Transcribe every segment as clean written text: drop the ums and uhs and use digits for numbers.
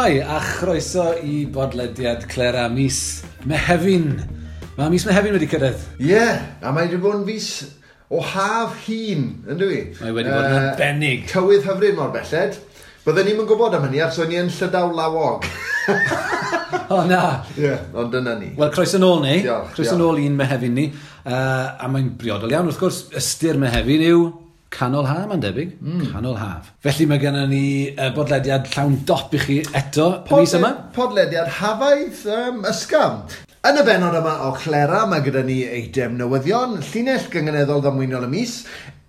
Shwmae, a chroeso i bodlediad Clera mis Mehefin. Mae mis Mehefin wedi cyrraedd. Ie, yeah, a mae wedi bod yn fis o haf hun, yn dwi? Mae wedi bod yn arbennig. Tywydd hyfryd mor belled. Bydden ni'm yn gwybod am hynny, achos o'n i yn Llydaw lawog. O na! Ie, yeah, ond dyna ni. Wel, croeso nôl ni. Diolch. Croeso nôl i'n Mehefin ni. A mae'n briodol iawn, wrth gwrs, ystyr Mehefin yw canol haf, mae'n debyg. Canol haf. Felly mae gennym ni bodlediad llawn dop i chi eto y mis yma. Podlediad hafaidd ysgafn. Yn y bennod yma o Clera, mae gyda ni eitem newyddion, llinell gynganeddol ddamweiniol y mis,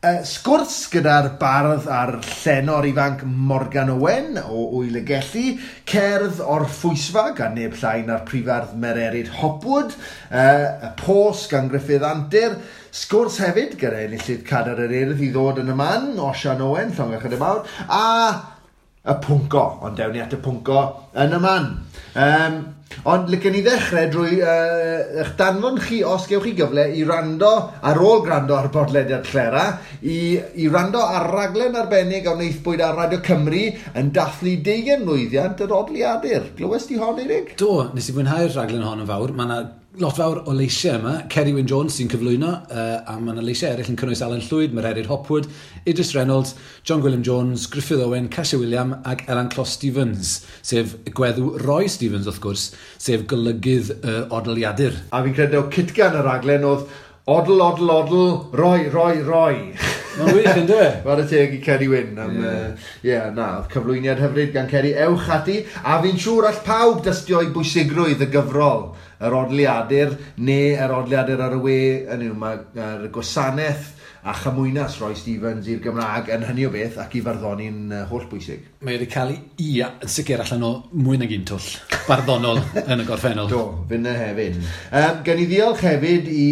sgwrs gyda'r bardd a'r llenor ifanc Morgan Owen o Ŵyl y Gelli, cerdd o'r Ffwysfa gan neb llai na'r prifardd Mererid Hopwood, y Pos gan Gruffydd Antur, sgwrs hefyd gyda enillydd Cadair yr Urdd i ddod yn y man, Osian Owen, llongyfarchiadau mawr, a y pwnco, ond dewn ni at y pwnco yn y man. Ond licen ni ddechrau drwy eich danfon chi, os gewch chi gyfle, i rando, ar ôl gwrando ar bodlediad Clera, i rando ar raglen arbennig a wnaethpwyd ar Radio Cymru yn dathlu 20 mlwyddiant yr Odliadur. Glywes di hon, Eirig? Do, nes i fwynhau'r raglen hon yn fawr. Mae yna lot fawr o leisiau yma. Ceri Wyn Jones sy'n cyflwyno, a mae yna leisiau eraill yn cynnwys Alan Llwyd, Mererid Hopwood, Idris Reynolds, John Gwilym Jones, Gruffydd Owen, Casia Wiliam ac Elan Clos Stevens, sef gweddw Roy Stevens, wrth gwrs, sef golygydd yr Odliadur. A fi'n credu o cytgan y raglen oedd odl, odl, odl, roi, roi, roi. Mae'n wych, yn dyw e? Chwarae teg i Ceri Wyn am, ie, na, oedd cyflwyniad hyfryd gan Ceri. Ewch ati, a fi'n siŵr all pawb dystio i bwysigrwydd y gyfrol, yr Odliadur, neu yr Odliadur ar y we, yn yw, mae'r gwasanaeth a chymwynas Roy Stevens i'r Gymraeg yn hynny o beth ac i farddoni'n holl bwysig. Mae wedi cael ei yn sicr allan o mwy nag un twll barddonol yn y gorffennol. Do, finne hefyd. Gen i ddiolch hefyd i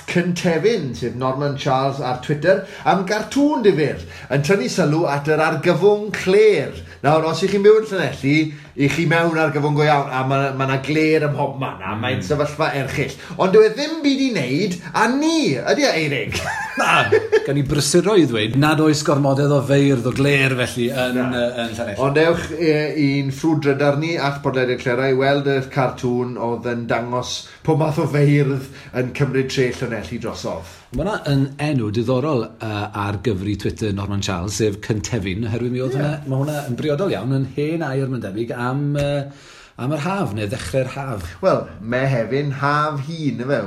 @Cyntefin, sef Norman Charles ar Twitter, am gartŵn difyr yn tynnu sylw at yr argyfwng clêr. Nawr, os ych chi'n byw yn Llanelli, i chi mewn argyfwng go iawn, a ma' 'na glêr ym mhobman, a mae'n sefyllfa erchyll. Ond dyw e ddim byd i wneud â ni, ydy e, Eirig? Na, gan i brysuro i ddweud nad oes gormodedd o feirdd o glêr felly yn Llanelli. Ond ewch i'n ffrwd drydar ni at Podlediad Clera i weld y cartŵn oedd yn dangos pob math o feirdd yn cymryd tre Llanelli drosodd. Mae hwnna yn enw diddorol ar gyfri Twitter Norman Charles, sef Cyntefin, oherwydd mi oedd hwnna, mae hwnna yn briodol iawn, yn hen air mae'n debyg am yr haf, neu ddechrau'r haf. Wel, Mehefin, haf hun, ife,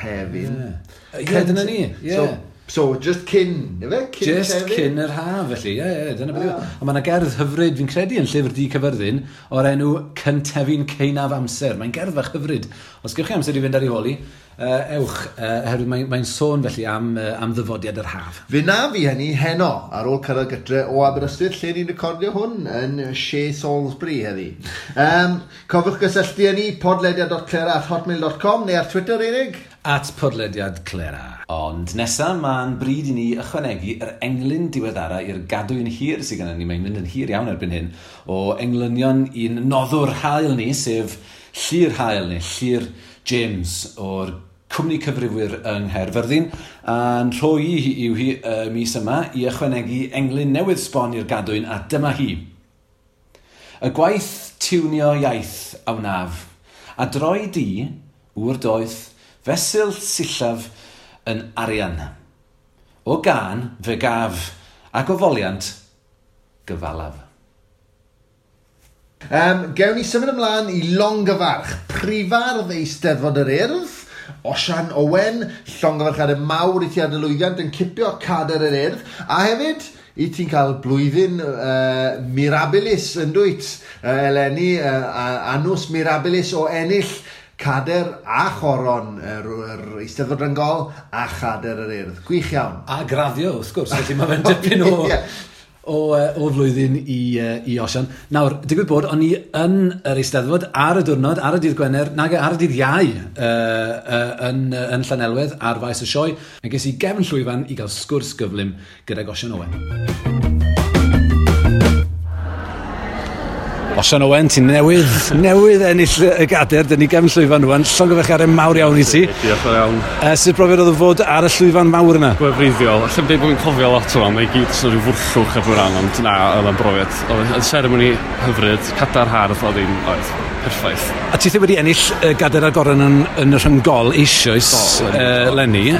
hefin. Ie, dyna ni, ie. So, just cyn, ife? Cyn Just hefin? Cyn yr haf, felly, ie, dyna beth yw. Ond mae yna gerdd hyfryd, fi'n credu, yn Llyfr Du Caerfyrddin, o'r enw Cyntefin Ceinaf Amser. Mae'n gerdd fach hyfryd. Os gewch chi amser i fynd ar ei hôl hi, ewch, oherwydd mae'n sôn felly am ddyfodiad yr haf. Fe na fi hynny heno, ar ôl cyrraedd gytre o Aberystwyth, lle ni'n recordio hwn yn Shea Salisbury heddi. Cofiwch gysylltu â ni, podlediad.clera@hotmail.com neu ar Twitter, Eirig? @podlediadclera. Ond nesa, mae'n bryd i ni ychwanegu yr englyn diweddara i'r gadwyn hir sydd gennym ni. Mae'n mynd yn hir iawn erbyn hyn, o englynion i'n noddwr hael ni, sef Llyr Hael neu Llyr James o'r cwmni cyfrifwyr yng Nghaerfyrddin, a'n rhoi hi yw hi y mis yma i ychwanegu englyn newydd sbon i'r gadwyn, a dyma hi. Y gwaith tiwnio iaith a wnaf, a droi di, ŵr doeth, fesul sillaf yn arian. O gân fe gaf, ac o foliant gyfalaf. Gewn ni symud ymlaen i longyfarch prifardd Eisteddfod yr Urdd, Osian Owen, llongyfarchiadau mawr i ti ar dy lwyddiant yn cipio Cadair yr Urdd, a hefyd i ti'n cael blwyddyn mirabilis yn dwyt, eleni, annus mirabilis o ennill Cadair a Choron yr Eisteddfod Ryngol a Chadair yr Urdd. Gwych iawn. A graddio, wrth gwrs, felly mae fe'n dipyn o flwyddyn i Osian. Nawr, digwydd bod, o'n i yn yr Eisteddfod ar y diwrnod, ar y dydd Gwener, nag ar y dydd Iau yn Llanelwedd ar faes y sioe. A ges i gefn llwyfan i gael sgwrs gyflym gydag Osian Owen. Osian Owen, ti'n newydd ennill y gader, dyn ni gefn llwyfan rwan, llongyfarchiadau mawr iawn i ti. Diolch yn iawn. Sut brofiad oedd o fod ar y llwyfan mawr yna? Gwefreiddiol. Allai'm deud bod fi'n cofio lot o mae i gyd jyst yn rhyw fwrllwch ar rhan, ond na, oedd o'n brofiad. Oedd yn seremoni hyfryd, cadar hardd, oedd hi'n, oedd, perffaith. A ti wedi ennill y gader a'r goron yn y rhyngol eisoes leni.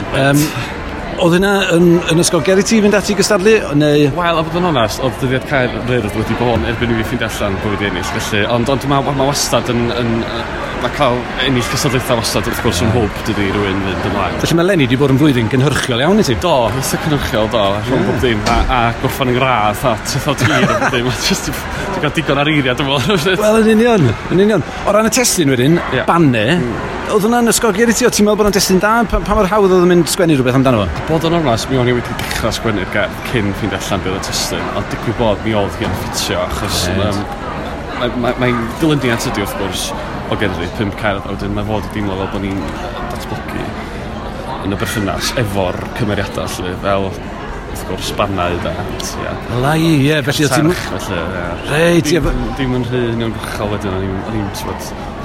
Oedd hynna yn ysgogiad i ti fynd ati i gystadlu, neu? Wel, a bod yn onest, oedd dyddiad cau'r Urdd wedi bod erbyn i fi ffeindio allan bod fi wedi ennill, felly, ond mae ma wastad mae cael ennill cystadlaethau wastad wrth gwrs yn hwb, dydy, rhywun fynd ymlaen. Felly mae leni wedi bod yn flwyddyn gynhyrchiol iawn i ti? Do, eitha cynhyrchiol, do, rhwng bob dim, a gorffan yng ngradd, a tithod hir a bob dim, just, dwi'n cael digon ar eiriau, dwi'n meddwl. Wel, yn union, yn union. O ran y testun wedyn, Banne, oedd hwnna'n ysgogiad i ti? O ti'n meddwl bod o'n destun da? Pa mor hawdd oedd yn mynd sgwennu rhywbeth amdano fo? Bod yn onest, mi o'n i wedi dechrau sgwennu'r gerdd cyn ffeindio allan beth oedd y testun, ond digwydd bod mi oedd hi'n ffitio, achos mae'n dilyniant ydi wrth gwrs o gerddi, 5 cerdd, a wedyn mae fod i deimlo fel bod ni'n datblygu yn y berthynas efo'r cymeriadau, lle, fel wrth gwrs Bannau da. Lai, ie, felly o ti'n... Felly, ie. Reit, ie. Dim yn rhy uniongyrchol wedyn, o'n i'n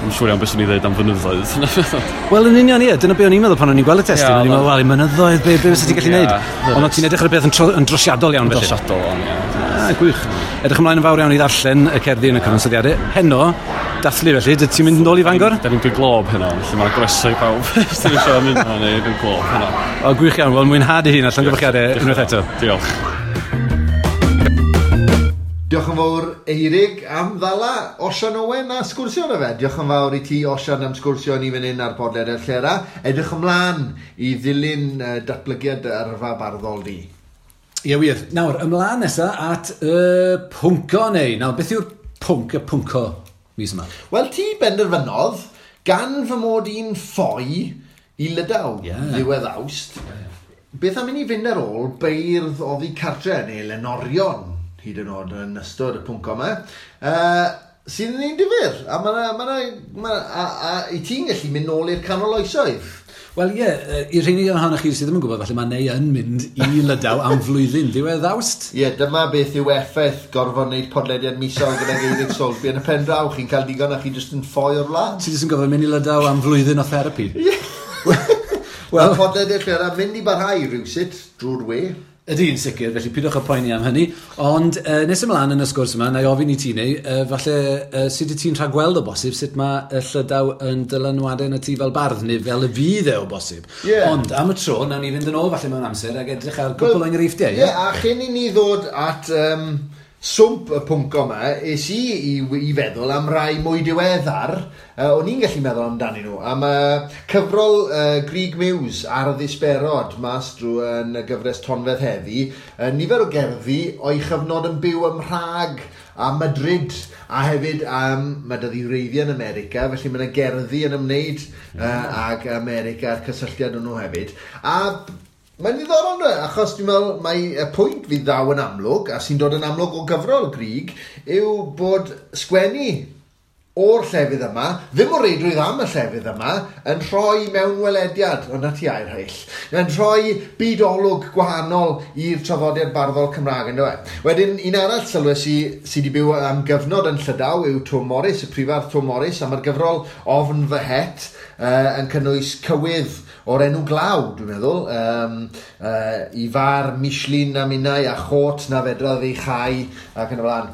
Dwi'n siŵr iawn beth swn i ddeud am fynyddoedd. Wel, yn union, ie. Dyna be o'n i'n meddwl pan o'n i'n gweld y testun. O'n i'n meddwl, wel, i mynyddoedd, be fysa ti'n gallu neud? Ond o'n ti'n edrych ar y beth yn drosiadol iawn, felly. Drosiadol, o'n, ie. Ah, gwych. Edrych ymlaen yn fawr iawn i ddarllen y cerddi yn y cyfansoddiadau. Heno, dathlu felly, dy ti'n mynd yn ôl i Fangor? Da ni'n Glob heno, felly mae'n groeso i pawb. Os ti'n eisiau mynd yno, neu dwi'n Glob heno. O, gwych iawn. Wel, mwynhad i hun a llongyfarchiadau unwaith eto. Diolch. Diolch yn fawr Eirig am ddala Osian Owen a sgwrsio na fe. Diolch yn fawr i ti Osian am sgwrsio ni fan hyn ar podlediad Llera. Edrych ymlaen i ddilyn datblygiad yrfa barddol di. Ie wir. Nawr, ymlaen nesa at y pwnco neu. Nawr, beth yw'r pwnc, y pwnco mis yma? Wel, ti benderfynodd gan fy mod i'n ffoi i Lydaw ddiwedd Awst. Beth am i ni fynd ar ôl beirdd oddi cartre neu lenorion hyd yn oed yn ystod y pwnc yma, sydd yn un difyr, a a i ti'n gallu mynd nôl i'r canol oesoedd. Wel ie, i'r rheini ohonoch chi sydd ddim yn gwybod, falle mae Neu yn mynd i Lydaw am flwyddyn ddiwedd Awst. Ie, dyma beth yw effaith gorfod wneud podlediad misol gyda Eirig Soulsby yn y pen draw. Chi'n cael digon a chi jyst yn ffoi o'r wlad. Ti jyst yn gorfod mynd i Lydaw am flwyddyn o therapi. Ie. Wel, podlediad lle mynd i barhau rhywsut drwy'r we. Ydy, yn sicr, felly pidwch â poeni am hynny. Ond nes ymlaen yn y sgwrs yma, na i ofyn i ti neu, falle sut y ti'n rhagweld o bosib, sut mae y Llydaw yn dylanwadau yn y ti fel bardd, neu fel y fydd e o bosib. Yeah. Ond am y tro, nawn ni fynd yn ôl falle mewn amser ac edrych ar gwpl o enghreifftiau. Ie, yeah, a chyn i ni ddod at swmp y pwnc yma, es i feddwl am rai mwy diweddar, o'n i'n gallu meddwl amdanyn nhw, am cyfrol Grug Muse ar y ddisberod mas drwy yn y gyfres Tonfedd Heddi, nifer o gerddi o'i chyfnod yn byw ym Mhrag a Madrid, a hefyd mae 'da wreiddiau yn America, felly mae yna gerddi yn ymwneud ag America a'r cysylltiad nhw hefyd. A mae'n ddiddorol yna, achos dwi'n meddwl mae y pwynt fydd ddaw yn amlwg, a sy'n dod yn amlwg o gyfrol Grug, yw bod sgwennu o'r llefydd yma, ddim o reidrwydd am y llefydd yma, yn rhoi mewnwelediad, ond na ti air hyll, yn rhoi byd-olwg gwahanol i'r traddodiad barddol Cymraeg, ynddo e. Wedyn, un arall sylwes i sydd wedi byw am gyfnod yn Llydaw yw Twm Morys, y prifardd Twm Morys, a mae'r gyfrol Ofn Fy Het yn cynnwys cywydd o'r enw Glaw, dwi'n meddwl, i far Michelin a minnau a chot na fedradd ei chau ac yn y blaen.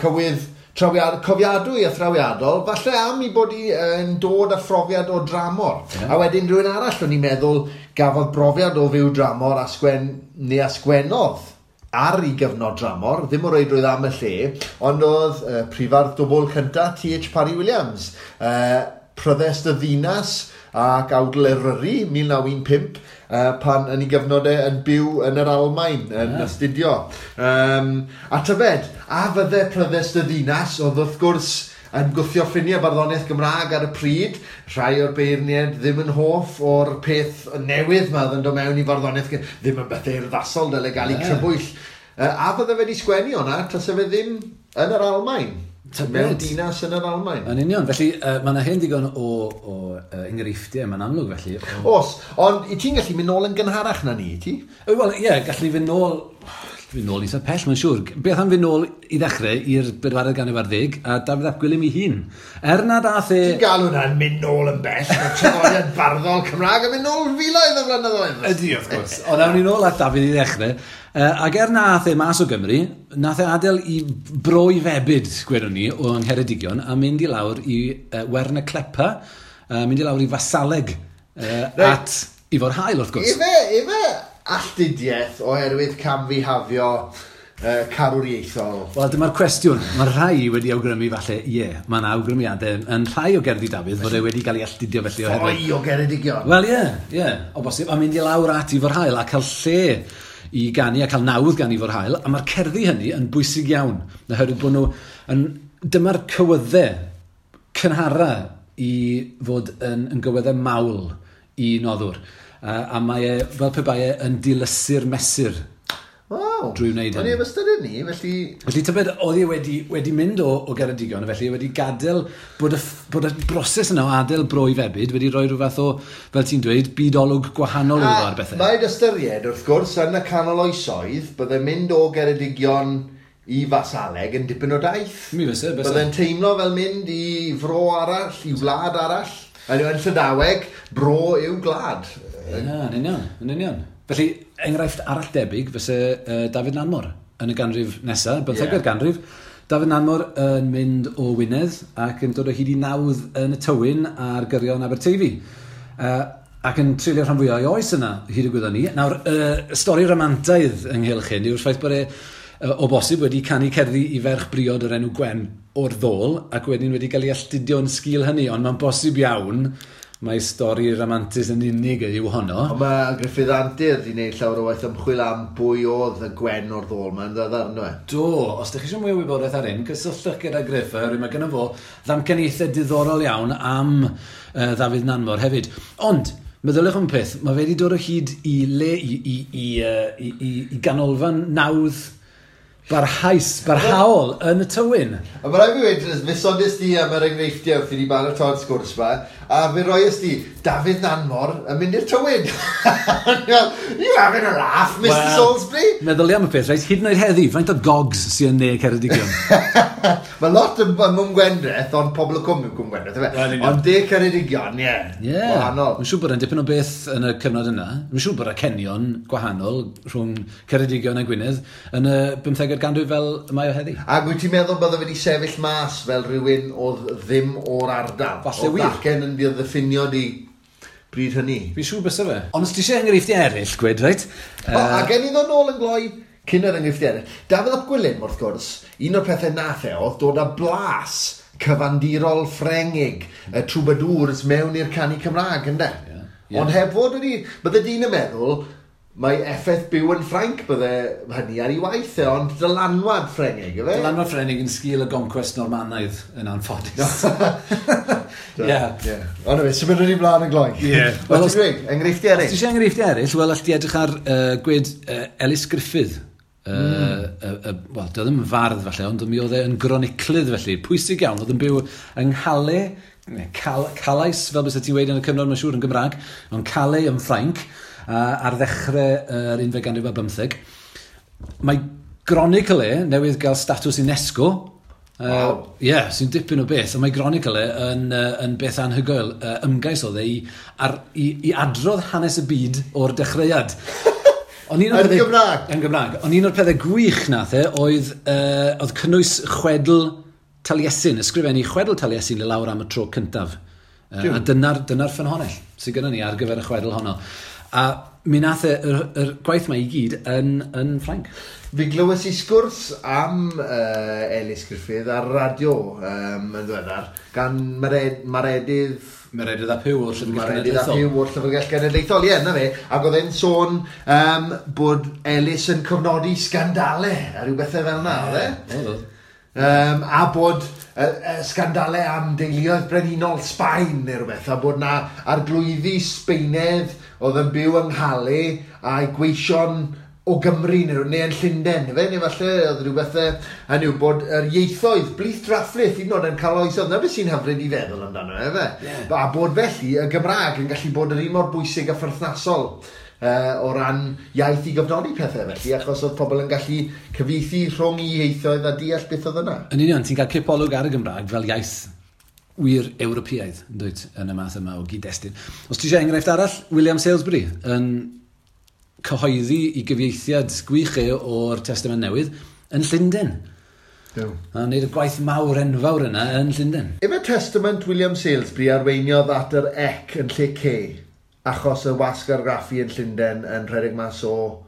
Cywydd cofiadwy a thrawiadol, falle am i bod i yn dod â phrofiad o dramor. Yeah. A wedyn rhywun arall o'n i'n meddwl gafodd brofiad o fyw dramor a sgwennodd ar ei gyfnod dramor, ddim o reidrwydd am y lle, ond oedd prifardd dwbl cynta T.H. Parry Williams, Pryddest y Ddinas ac Awdl Eryri 1915, pan yn ei gyfnod e yn byw yn yr Almaen, yn astudio. A tybed, a fydde Pryddest y Ddinas, oedd wrth gwrs yn gwthio ffiniau barddoniaeth Gymraeg ar y pryd, rhai o'r beirniaid ddim yn hoff o'r peth newydd ma oedd yn dod mewn i farddoniaeth, ddim yn beth urddasol, dyle gael ei crybwyll. A fydde fe wedi sgwennu hwnna, tase fe ddim yn yr Almaen. Mewn dinas yn yr Almaen. Yn union, felly mae yna hen digon o enghreifftiau, mae'n amlwg felly. Os, ond i ti'n gallu mynd nôl yn gynharach na ni, ti? Wel, ie, gallu ni fynd nôl. Fynd nôl eitha pell, mae'n siŵr. Beth am fynd nôl i ddechrau i'r bedwaredd ganrif ar ddeg a Dafydd ap Gwilym ei hun. Er nad ath e... Ti'n galw hwnna'n mynd nôl yn bell, mae traddodiad barddol Cymraeg yn mynd nôl filoedd o flynyddoedd. Ydy, wrth gwrs. Ond awn ni nôl at Dafydd i ddechrau. Ac er na ath e mas o Gymru, nath e adael i bro i febyd, gwedwn ni, o Ngheredigion, a mynd i lawr i Wern y Clepa, mynd i lawr i Fasaleg at Ifor Hael, wrth gwrs. Ife alltudiaeth oherwydd camfihafio carwriaethol? Wel, dyma'r cwestiwn. Mae rhai wedi awgrymu falle, ie, mae yna awgrymiadau yn rhai o gerddi Dafydd fod e wedi cael ei alltudio felly oherwydd... Ffoi o Geredigion. Wel, ie, o bosib. A mynd i lawr at Ifor Hael a cael lle i ganu a cael nawdd gan Ifor Hael. A mae'r cerddi hynny yn bwysig iawn, oherwydd bod nhw yn... Dyma'r cywyddau cynhara i fod yn gywyddau mawl i noddwr. A mae e, fel pe bai e, yn dilysu'r mesur. Waw. Drwy wneud O'n hynny. i heb ystyried ni, felly... Felly tybed, oedd e wedi mynd o Geredigion, felly wedi gadael bod y broses yna o adael bro i febyd wedi rhoi rhyw fath o, fel ti'n dweud, byd-olwg gwahanol iddo fo ar bethau. Mae'n ystyried, wrth gwrs, yn y canol oesoedd, bydde mynd o Geredigion i Fasaleg yn dipyn o daith. Mi fyse, byse. Bydde'n teimlo fel mynd i fro arall, i wlad arall. Yn Llydaweg, bro yw gwlad. Ie, yn union, yn union. Felly, enghraifft arall debyg fyse Dafydd Nanmor yn y ganrif nesaf, bymthegfed ganrif. Dafydd Nanmor yn mynd o Wynedd ac yn dod o hyd i nawdd yn y Tywyn ar gyrion Aberteifi. Ac yn treulio rhan fwyaf o'i oes yna, hyd y gwyddon ni. Nawr, stori ramantaidd ynghylch hyn yw'r ffaith bod e o bosib wedi canu cerddi i ferch briod o'r enw Gwen o'r ddôl, ac wedyn wedi cael ei alltudio yn sgil hynny, ond mae'n bosib iawn mae stori ramantus yn unig yw honno. Ond mae Gruffydd Antur wedi gwneud llawer o waith ymchwil am bwy oedd y Gwen o'r ddôl ma'n ddiweddar, ynddo e? Do, os ydych chi eisiau mwy o wybodaeth ar hyn, cysylltwch gyda Gruff, oherwydd mae gynno fo ddamcaniaethau diddorol iawn am Ddafydd Nanmor hefyd. Ond, meddyliwch am peth, mae fe wedi dod o hyd i le, i ganolfan nawdd barhaus, barhaol yn y Tywyn. A mae rhaid fi weud, fe sonies di am yr enghreifftiau wrth i ni baratoi'r sgwrs ma, a fe roes di Dafydd Nanmor yn mynd i'r Tywyn. You having a laugh, Mr Well, Salisbury? Meddylia am y peth, reit, hyd yn oed heddi, faint o gogs sy'n yn ne Ceredigion? Mae lot yn Cwm Gwendraeth, ond pobl y cwm yw Cwm Gwendraeth, ife? Wel, union. Ond de Ceredigion, ie. Ie. Wahanol. Mae'n siŵr bod e'n dipyn o beth yn y cyfnod yna. Mae'n siŵr bod y cenion gwahanol rhwng Ceredigion a Gwynedd yn y 15fed ganrif fel y mae o heddi. Ac wyt ti'n meddwl bydde wedi sefyll mas fel rhywun oedd ddim o'r ardal? Falle Oedd wir. acen yn ddiffinio di bryd hynny. Fi'n siŵr byse fe. Ond os ti eisiau enghreifftiau eraill, gwed, reit? O, a gen i ddod nôl yn gloi cyn yr enghreifftiau eraill. Dafydd ap Gwilym, wrth gwrs, un o'r pethau nath e oedd dod â blas cyfandirol Ffrengig, y troubadours mewn i'r canu Cymraeg, ynde? Ie. Ond heb fod wedi... Bydde dyn yn meddwl, mae effaith byw yn Ffrainc bydde hynny ar ei waith e, ond dylanwad Ffrengig, ife? Dylanwad Ffrengig yn sgil y goncwest Normanaidd yn anffodus. Ie. Ie. Ond efe, symudwn ni mlaen yn gloi. Ie. Wel, ti'n dweud, enghreifftiau Os ti eraill. eisiau enghreifftiau eraill, wel, all ti edrych ar gwed Elis Gruffydd. Wel, doedd ddim yn fardd falle, ond mi oedd e yn groniclydd felly. Pwysig iawn, oedd yn byw yng Nghalais, neu Calais, fel byse ti'n weud yn y cyfnod, mae'n siŵr yn Gymraeg, ond Calais yn Ffrainc, ar ddechrau yr unfed ganrif ar bymtheg. Mae gronicl e newydd gael statws UNESCO. Waw. Ie, sy'n dipyn o beth. A mae gronicl e yn beth anhygoel. Ymgais oedd e i adrodd hanes y byd o'r dechreuad. Ond un o'r Yn pethau- Gymraeg? Yn Gymraeg. Ond un o'r pethau gwych nath e oedd cynnwys chwedl Taliesin, ysgrifennu chwedl Taliesin i lawr am y tro cyntaf. A dyna'r ffynhonnell sydd gyda ni ar gyfer y chwedl honno. A mi nath e yr gwaith ma i gyd yn Ffrainc. Fi glywes i sgwrs am Elis Gruffydd ar radio yn ddiweddar gan Maredydd Meredydd ap Huw o'r Llyfrgell Maredydd ap Genedlaethol. Huw o'r Llyfrgell Genedlaethol, ie, na fe. Ac oedd e'n sôn bod Elis yn cofnodi sgandalau a rhyw bethau fel yna, oedd e? Oedd, oedd. A bod sgandalau am deuluoedd brenhinol Sbaen neu rhywbeth, a bod na arglwyddi Sbaenedd oedd yn byw yng Nghalais a'i gweision o Gymru neu yn Llundain, ife? Neu falle oedd rhywbeth hynny yw bod yr ieithoedd blith drafflith hyd yn oed yn cael oesoedd. Na beth sy'n hyfryd i feddwl amdano, efe? Ie. A bod felly y Gymraeg yn gallu bod yr un mor bwysig a pherthnasol o ran iaith i gofnodi pethau felly, achos oedd pobl yn gallu cyfieithu rhwng i ieithoedd a deall beth oedd yna. Yn union, ti'n cael cipolwg ar y Gymraeg fel iaith wir Ewropeaidd, yn dweud, yn y math yma o gyd-destun. Os ti eisiau enghraifft arall, William Salesbury yn cyhoeddi i gyfieithiad gwych e o'r Testament Newydd yn Llundain. Do. A wneud y gwaith mawr enfawr yna yn Llundain. Efe Testament William Salesbury arweiniodd at yr ec yn lle C, achos y wasg argraffu yn Llundain yn rhedeg mas o...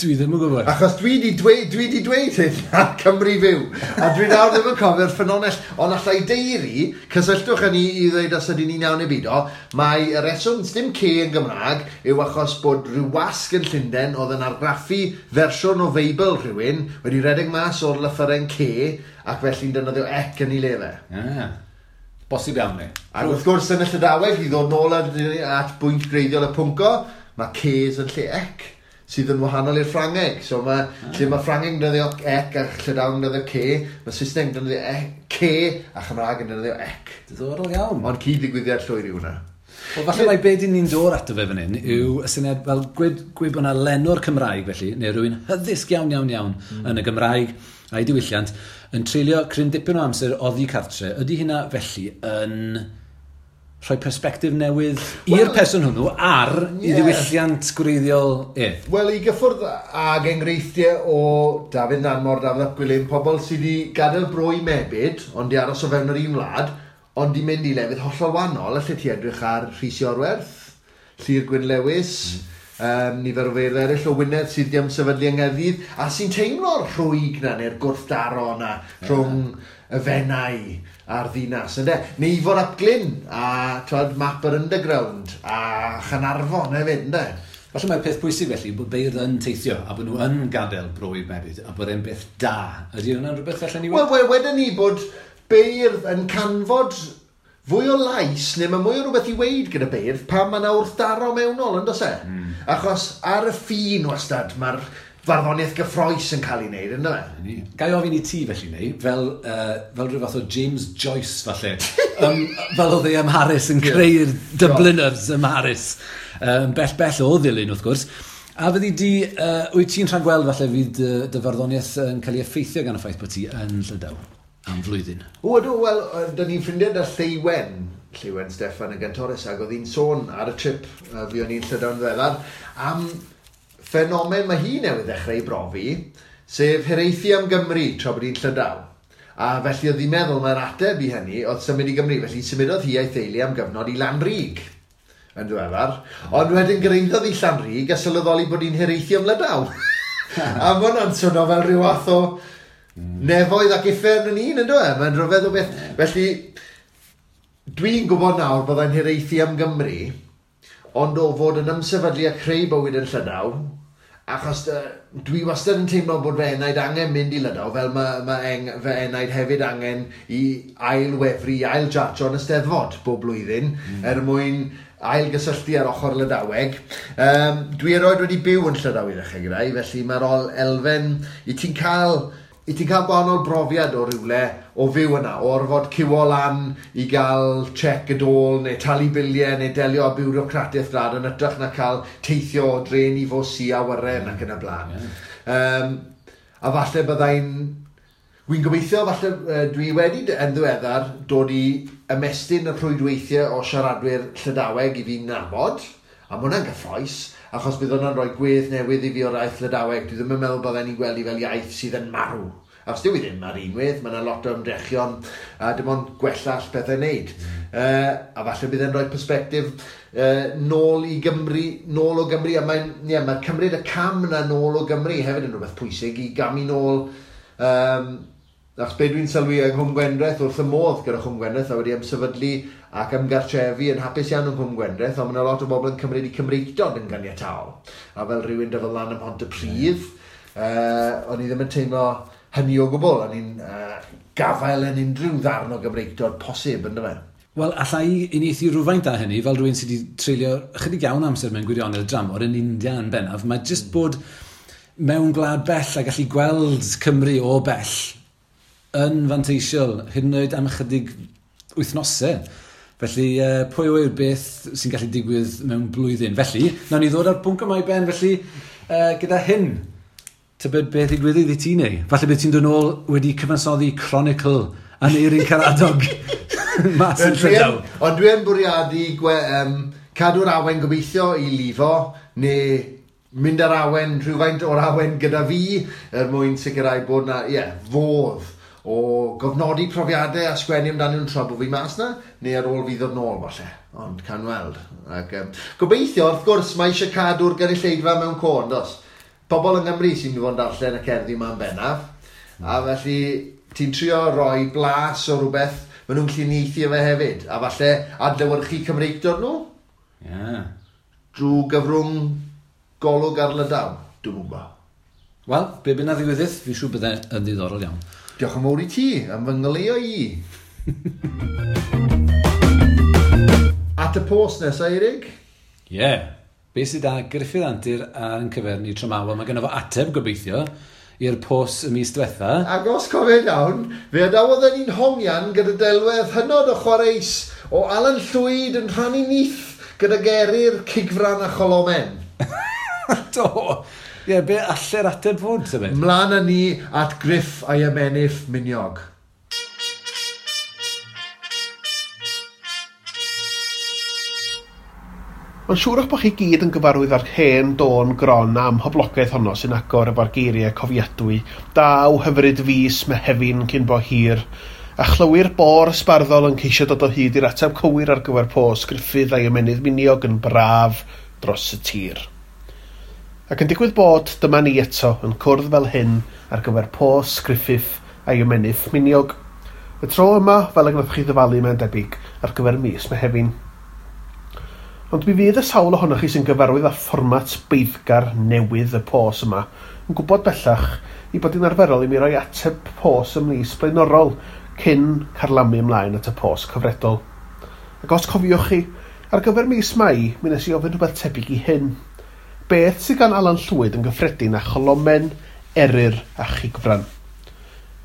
Dwi ddim yn gwybod. Achos dwi di dweud, dwi di dweud hyn ar Cymru Fyw, a dwi nawr ddim yn cofio'r ffynonell, ond allai deiri, cysylltwch â ni i ddweud os ydyn ni'n iawn neu beidio, mae y reswm dim C yn Gymraeg yw achos bod rhyw wasg yn Llundain oedd yn argraffu fersiwn o Feibl rhywun wedi rhedeg mas o'r lythyren C ac felly'n defnyddio ec yn ei le fe. Ah, bosib iawn ni. Ac wrth gwrs yn y Llydaweg, i ddod nôl at bwynt greiddiol y pwnco, mae Cs yn lle ec, sydd yn wahanol i'r Ffrangeg. So mae, lle mae Ffrangeg yn defnyddio ec a Llydaweg yn defnyddio C, mae Saesneg yn defnyddio C a Chymraeg yn defnyddio ec. Diddorol iawn. Ond cyd-ddigwyddiad llwyr yw hwnna. Wel, falle mai be dyn ni'n dod ato fe fan hyn yw y syniad fel gwed bod yna lenwr Cymraeg felly, neu rhywun hyddysg iawn, iawn, iawn yn y Gymraeg a'i diwylliant, yn treulio cryn dipyn o amser oddi cartre. Ydy hynna felly yn rhoi persbectif newydd i'r person hwnnw ar i ddiwylliant gwreiddiol e? Wel, i gyffwrdd ag enghreifftiau o Dafydd Nanmor, Dafydd ap Gwilym, pobl sydd wedi gadael bro i mebyd, ond di aros o fewn yr un wlad, ond di mynd i lefydd hollol wahanol, alle ti edrych ar Rhys Iorwerth, Llyr Gwyn Lewis, nifer o feirdd eraill o Wynedd sydd wedi ymsefydlu yng Nghaerdydd, a sy'n teimlo'r rhwyg na, neu'r gwrthdaro na, rhwng y Fenai a'r ddinas, ynde? Neu Ifor ap Glyn, a twad, map yr underground, a Chanarfon hefyd, ynde? Falle mae'r peth pwysig felly bod beirdd yn teithio a bod nhw yn gadael bro i mebyd a bod e'n beth da. Ydy hwnna'n rhywbeth allan ni Wel, wedyn ni bod beirdd yn canfod fwy o lais, neu mae mwy o rhywbeth i weid gyda beirdd pan mae yna wrthdaro mewnol, yn does e? Achos ar y ffin wastad, mae'r farddoniaeth gyffrous yn cael ei wneud, ynddo fe? Ga i ofyn i ti felly, neu, fel rhyw fath o James Joyce, falle, fel oedd e ym Mharis yn creu'r Dubliners ym Mharis, bell bell o Ddulyn, wrth gwrs. A fyddi di, wyt ti'n rhagweld falle fydd dy farddoniaeth yn cael ei effeithio gan y ffaith bod ti yn Llydaw am flwyddyn? O, ydw, wel, dyn ni'n ffrindiau da Lleuwen Steffan y Gantores, ac oedd hi'n sôn ar y trip fi o'n i'n Llydaw'n ddiweddar, am ffenomen mae hi newydd ddechrau i brofi, sef hiraethu am Gymru tra bod hi'n Llydaw. A felly oedd hi'n meddwl mae'r ateb i hynny oedd symud i Gymru, felly symudodd hi a'i theulu am gyfnod i Lanrug yn ddiweddar. Ond wedyn gyrhaeddodd hi Llanrug a sylweddoli bod hi'n hiraethu am Lydaw. A ma' hwnna'n swnio fel rhyw fath o nefoedd ac uffern yn un, ynddo e? Mae'n rhyfedd o beth. Felly, dwi'n gwybod nawr byddai'n hiraethu am Gymru, ond o fod yn ymsefydlu a creu bywyd yn Llydaw, achos dwi wastad yn teimlo bod fy enaid angen mynd i Lydaw, fel mae fy enaid hefyd angen i ailwefru, i ailjarjo yn y Steddfod bob blwyddyn, er mwyn ailgysylltu ar ochr Lydaweg. Dwi erioed wedi byw yn Llydaw i ddechrau gyda i, felly mae'r elfen, i ti'n cael gwahanol brofiad o rywle o fyw yna, o orfod ciwo lan i gael check y dôl, neu talu biliau, neu delio â biwrocratiaeth gwlad yn hytrach na cael teithio o dren i fws i awyren ac yn y blaen. A falle byddai'n... Wi'n gobeithio, falle dwi wedi yn ddiweddar dod i ymestyn y rhwydweithiau o siaradwyr Llydaweg i fi'n nabod, a ma' hwnna'n gyffrous, achos bydd hwnna'n rhoi gwedd newydd i fi o'r iaith Lydaweg. Dwi ddim yn meddwl bydden ni'n gweld i fel iaith sydd yn marw. Achos dyw i ddim ar unwaith, mae yna lot o ymdrechion a dim ond gwella all pethau wneud. A falle bydd e'n rhoi persbectif nôl i Gymru, nôl o Gymru, a mae'n, ie, mae cymryd y cam yna nôl o Gymru hefyd yn rhywbeth pwysig i gamu nôl. Achos be dwi'n sylwi yng Nghwm Gwendraeth, wrth y modd gyda Chwm Gwendraeth, a wedi ymsefydlu ac ymgartrefu yn hapus iawn yng Nghwm Gwendraeth, ond mae yna lot o bobl yn cymryd i Cymreictod yn ganiataol. A fel rhywun dyfod lan ym Mhontypridd, o'n i ddim yn teimlo hynny o gwbl, o'n i'n gafael yn unrhyw ddarn o Gymreictod posib, ynddo fe? Wel, alla i uniaethu rhywfaint â hynny, fel rhywun sydd wedi treulio ychydig iawn amser mewn gwirionedd dramor yn India yn bennaf, mae jyst bod mewn gwlad bell a gallu gweld Cymru o bell yn fanteisiol, hyd yn oed am ychydig wythnosau. Felly, pwy yw'r beth sy'n gallu digwydd mewn blwyddyn? Felly, nawn ni ddod â'r bwnc yma i ben, felly, gyda hyn, tybed beth ddigwyddodd i ti neu? Falle bydd ti'n dod nôl wedi cyfansoddi Chronicle Aneirin Karadog mas yn Llydaw. Ond dwi yn bwriadu cadw'r awen gobeithio i lifo, neu mynd ar awen, rhywfaint o'r awen gyda fi, er mwyn sicrhau bod na, ie, fodd o gofnodi profiadau a sgwennu amdanyn nhw'n tra bod fi mas na, neu ar ôl fi ddod nôl falle, ond can weld. Ac, gobeithio, wrth gwrs, mae eisiau cadw'r gynulleidfa mewn co, dos? Pobl yng Nghymru sy'n mynd i fod yn darllen y cerddi yma'n bennaf, a felly ti'n trio roi blas o rhywbeth maen nhw'n gallu uniaethu fe hefyd, a falle adlewyrchu Cymreictod nhw. Yeah. Drwy gyfrwng golwg ar Lydaw, dwi'n gwybod. Wel, be bynnag ddigwyddith, fi'n siŵr bydde yn ddiddorol iawn. Diolch yn fawr i ti am fy ngoleuo i. At y post nesaf, Eirig? Ie. Yeah. Be sydd â Gruffydd Antur ar yn cyfer ni tro 'ma? Wel, mae gynno fo ateb gobeithio i'r post y mis diwetha. Ac os cofio'n iawn, fe adawodd e'n ni'n hongian gyda delwedd hynod o chwareus o Alan Llwyd yn rhannu nyth gyda geryr, cigfran a cholomen. Do! Ie, yeah, be alle'r ateb fod, tybed? Mlaen â ni at Griff a'i ymennydd miniog. Mae'n siŵr eich bod chi gyd yn gyfarwydd â'r hen dôn gron am hoblogaeth honno sy'n agor efo'r geiriau cofiadwy. Daw hyfryd fis Mehefin cyn bo hir, a chlywir bôr ysbarddol yn ceisio dod o hyd i'r ateb cywir ar gyfer pos Gruffydd a'i ymennydd miniog yn braf dros y tir. Ac yn digwydd bod, dyma ni eto yn cwrdd fel hyn ar gyfer pos Gruffydd a'i ymennydd miniog. Y tro yma, fel y gwnaethoch chi ddyfalu mae'n debyg, ar gyfer mis Mehefin. Ond mi fydd y sawl ohonoch chi sy'n gyfarwydd â fformat beiddgar newydd y pos yma yn gwybod bellach i bod hi'n arferol i mi roi ateb pos ym mis blaenorol cyn carlamu ymlaen at y pos cyfredol. Ac os cofiwch chi, ar gyfer mis Mai, mi wnes i ofyn rhywbeth tebyg i hyn. Beth sydd gan Alan Llwyd yn gyffredin â cholomen, eryr a chigfran?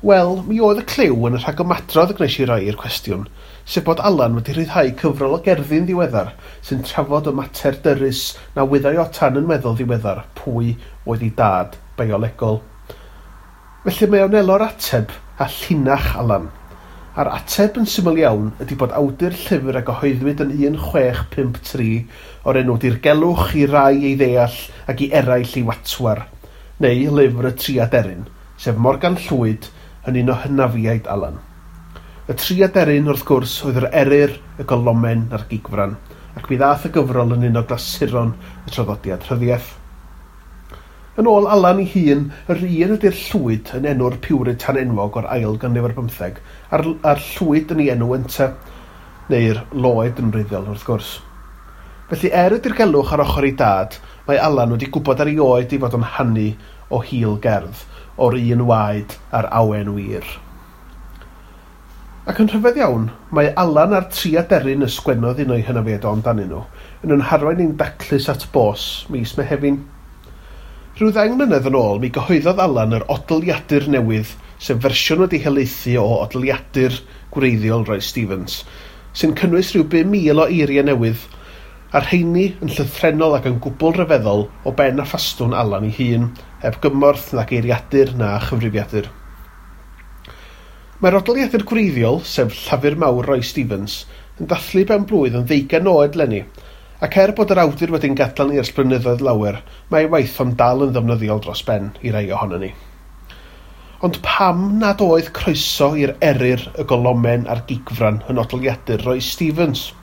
Wel, mi oedd y cliw yn y rhagymadrodd y gwnes i roi i'r cwestiwn, sef bod Alan wedi rhyddhau cyfrol o gerddi'n ddiweddar sy'n trafod y mater dyrys na wyddai o tan yn weddol ddiweddar pwy oedd ei dad biolegol. Felly mae o'n elo'r ateb a llinach Alan. A'r ateb yn syml iawn ydy bod awdur llyfr a gyhoeddwyd yn 1653 o'r enw Dirgelwch i rai ei ddeall ac i eraill ei watwar, neu lyfr y Tri Aderyn, sef Morgan Llwyd yn un o hynafiaid Alan. Y tri aderyn, wrth gwrs, oedd yr eryr, y golomen a'r gigfran, ac mi ddath y gyfrol yn un o glasuron y traddodiad rhyddiaeth. Yn ôl Alan ei hun, yr un ydy'r llwyd yn enw'r Puritan enwog o'r ail ganrif ar bymtheg, a'r llwyd yn ei enw ynte, neu'r loed yn wreiddiol, wrth gwrs. Felly er y dirgelwch ar ochr ei dad, mae Alan wedi gwybod ar ei oed ei fod yn hanu o hil gerdd, o'r un waed a'r awen wir. Ac yn rhyfedd iawn, mae Alan a'r tri aderyn y sgwennodd un o'i hynafiaid o amdanyn nhw, yn yn harwain ein daclus at bos mis Mehefin. Rhyw 10 mlynedd yn ôl, mi gyhoeddodd Alan yr odliadur newydd, sef fersiwn wedi helaethu o odliadur gwreiddiol Roy Stevens, sy'n cynnwys rhyw 5,000 o eiriau newydd, a'r rheini yn llythrennol ac yn gwbl ryfeddol o ben a ffastwn Alan ei hun, heb gymorth na geiriadur na chyfrifiadur. Mae'r odliadur gwreiddiol, sef Llafur Mawr Roy Stevens, yn dathlu ben blwydd yn 20 oed leni, ac er bod yr awdur wedi'n gadael ni ers blynyddoedd lawer, mae ei waith o'n dal yn ddefnyddiol dros ben i rai ohonon ni. Ond pam nad oedd croeso i'r eryr, y golomen a'r gigfran yn odliadur Roy Stevens?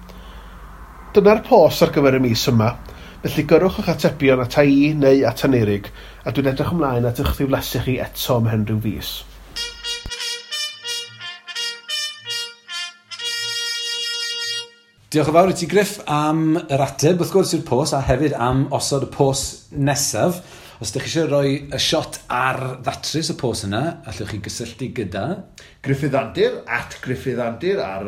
Dyna'r pos ar gyfer y mis yma, felly gyrrwch eich atebion ata i neu at Aneurig, a dwi'n edrych ymlaen at eich ddiflasu chi eto ymhen rhyw fis. Diolch yn fawr i ti, Griff, am yr ateb, wrth gwrs, i'r pos, a hefyd am osod y pos nesaf. Os ydych chi eisiau rhoi y shot ar ddatrys y pos yna, allwch chi gysylltu gyda Gruffydd Antur, @GruffyddAntur ar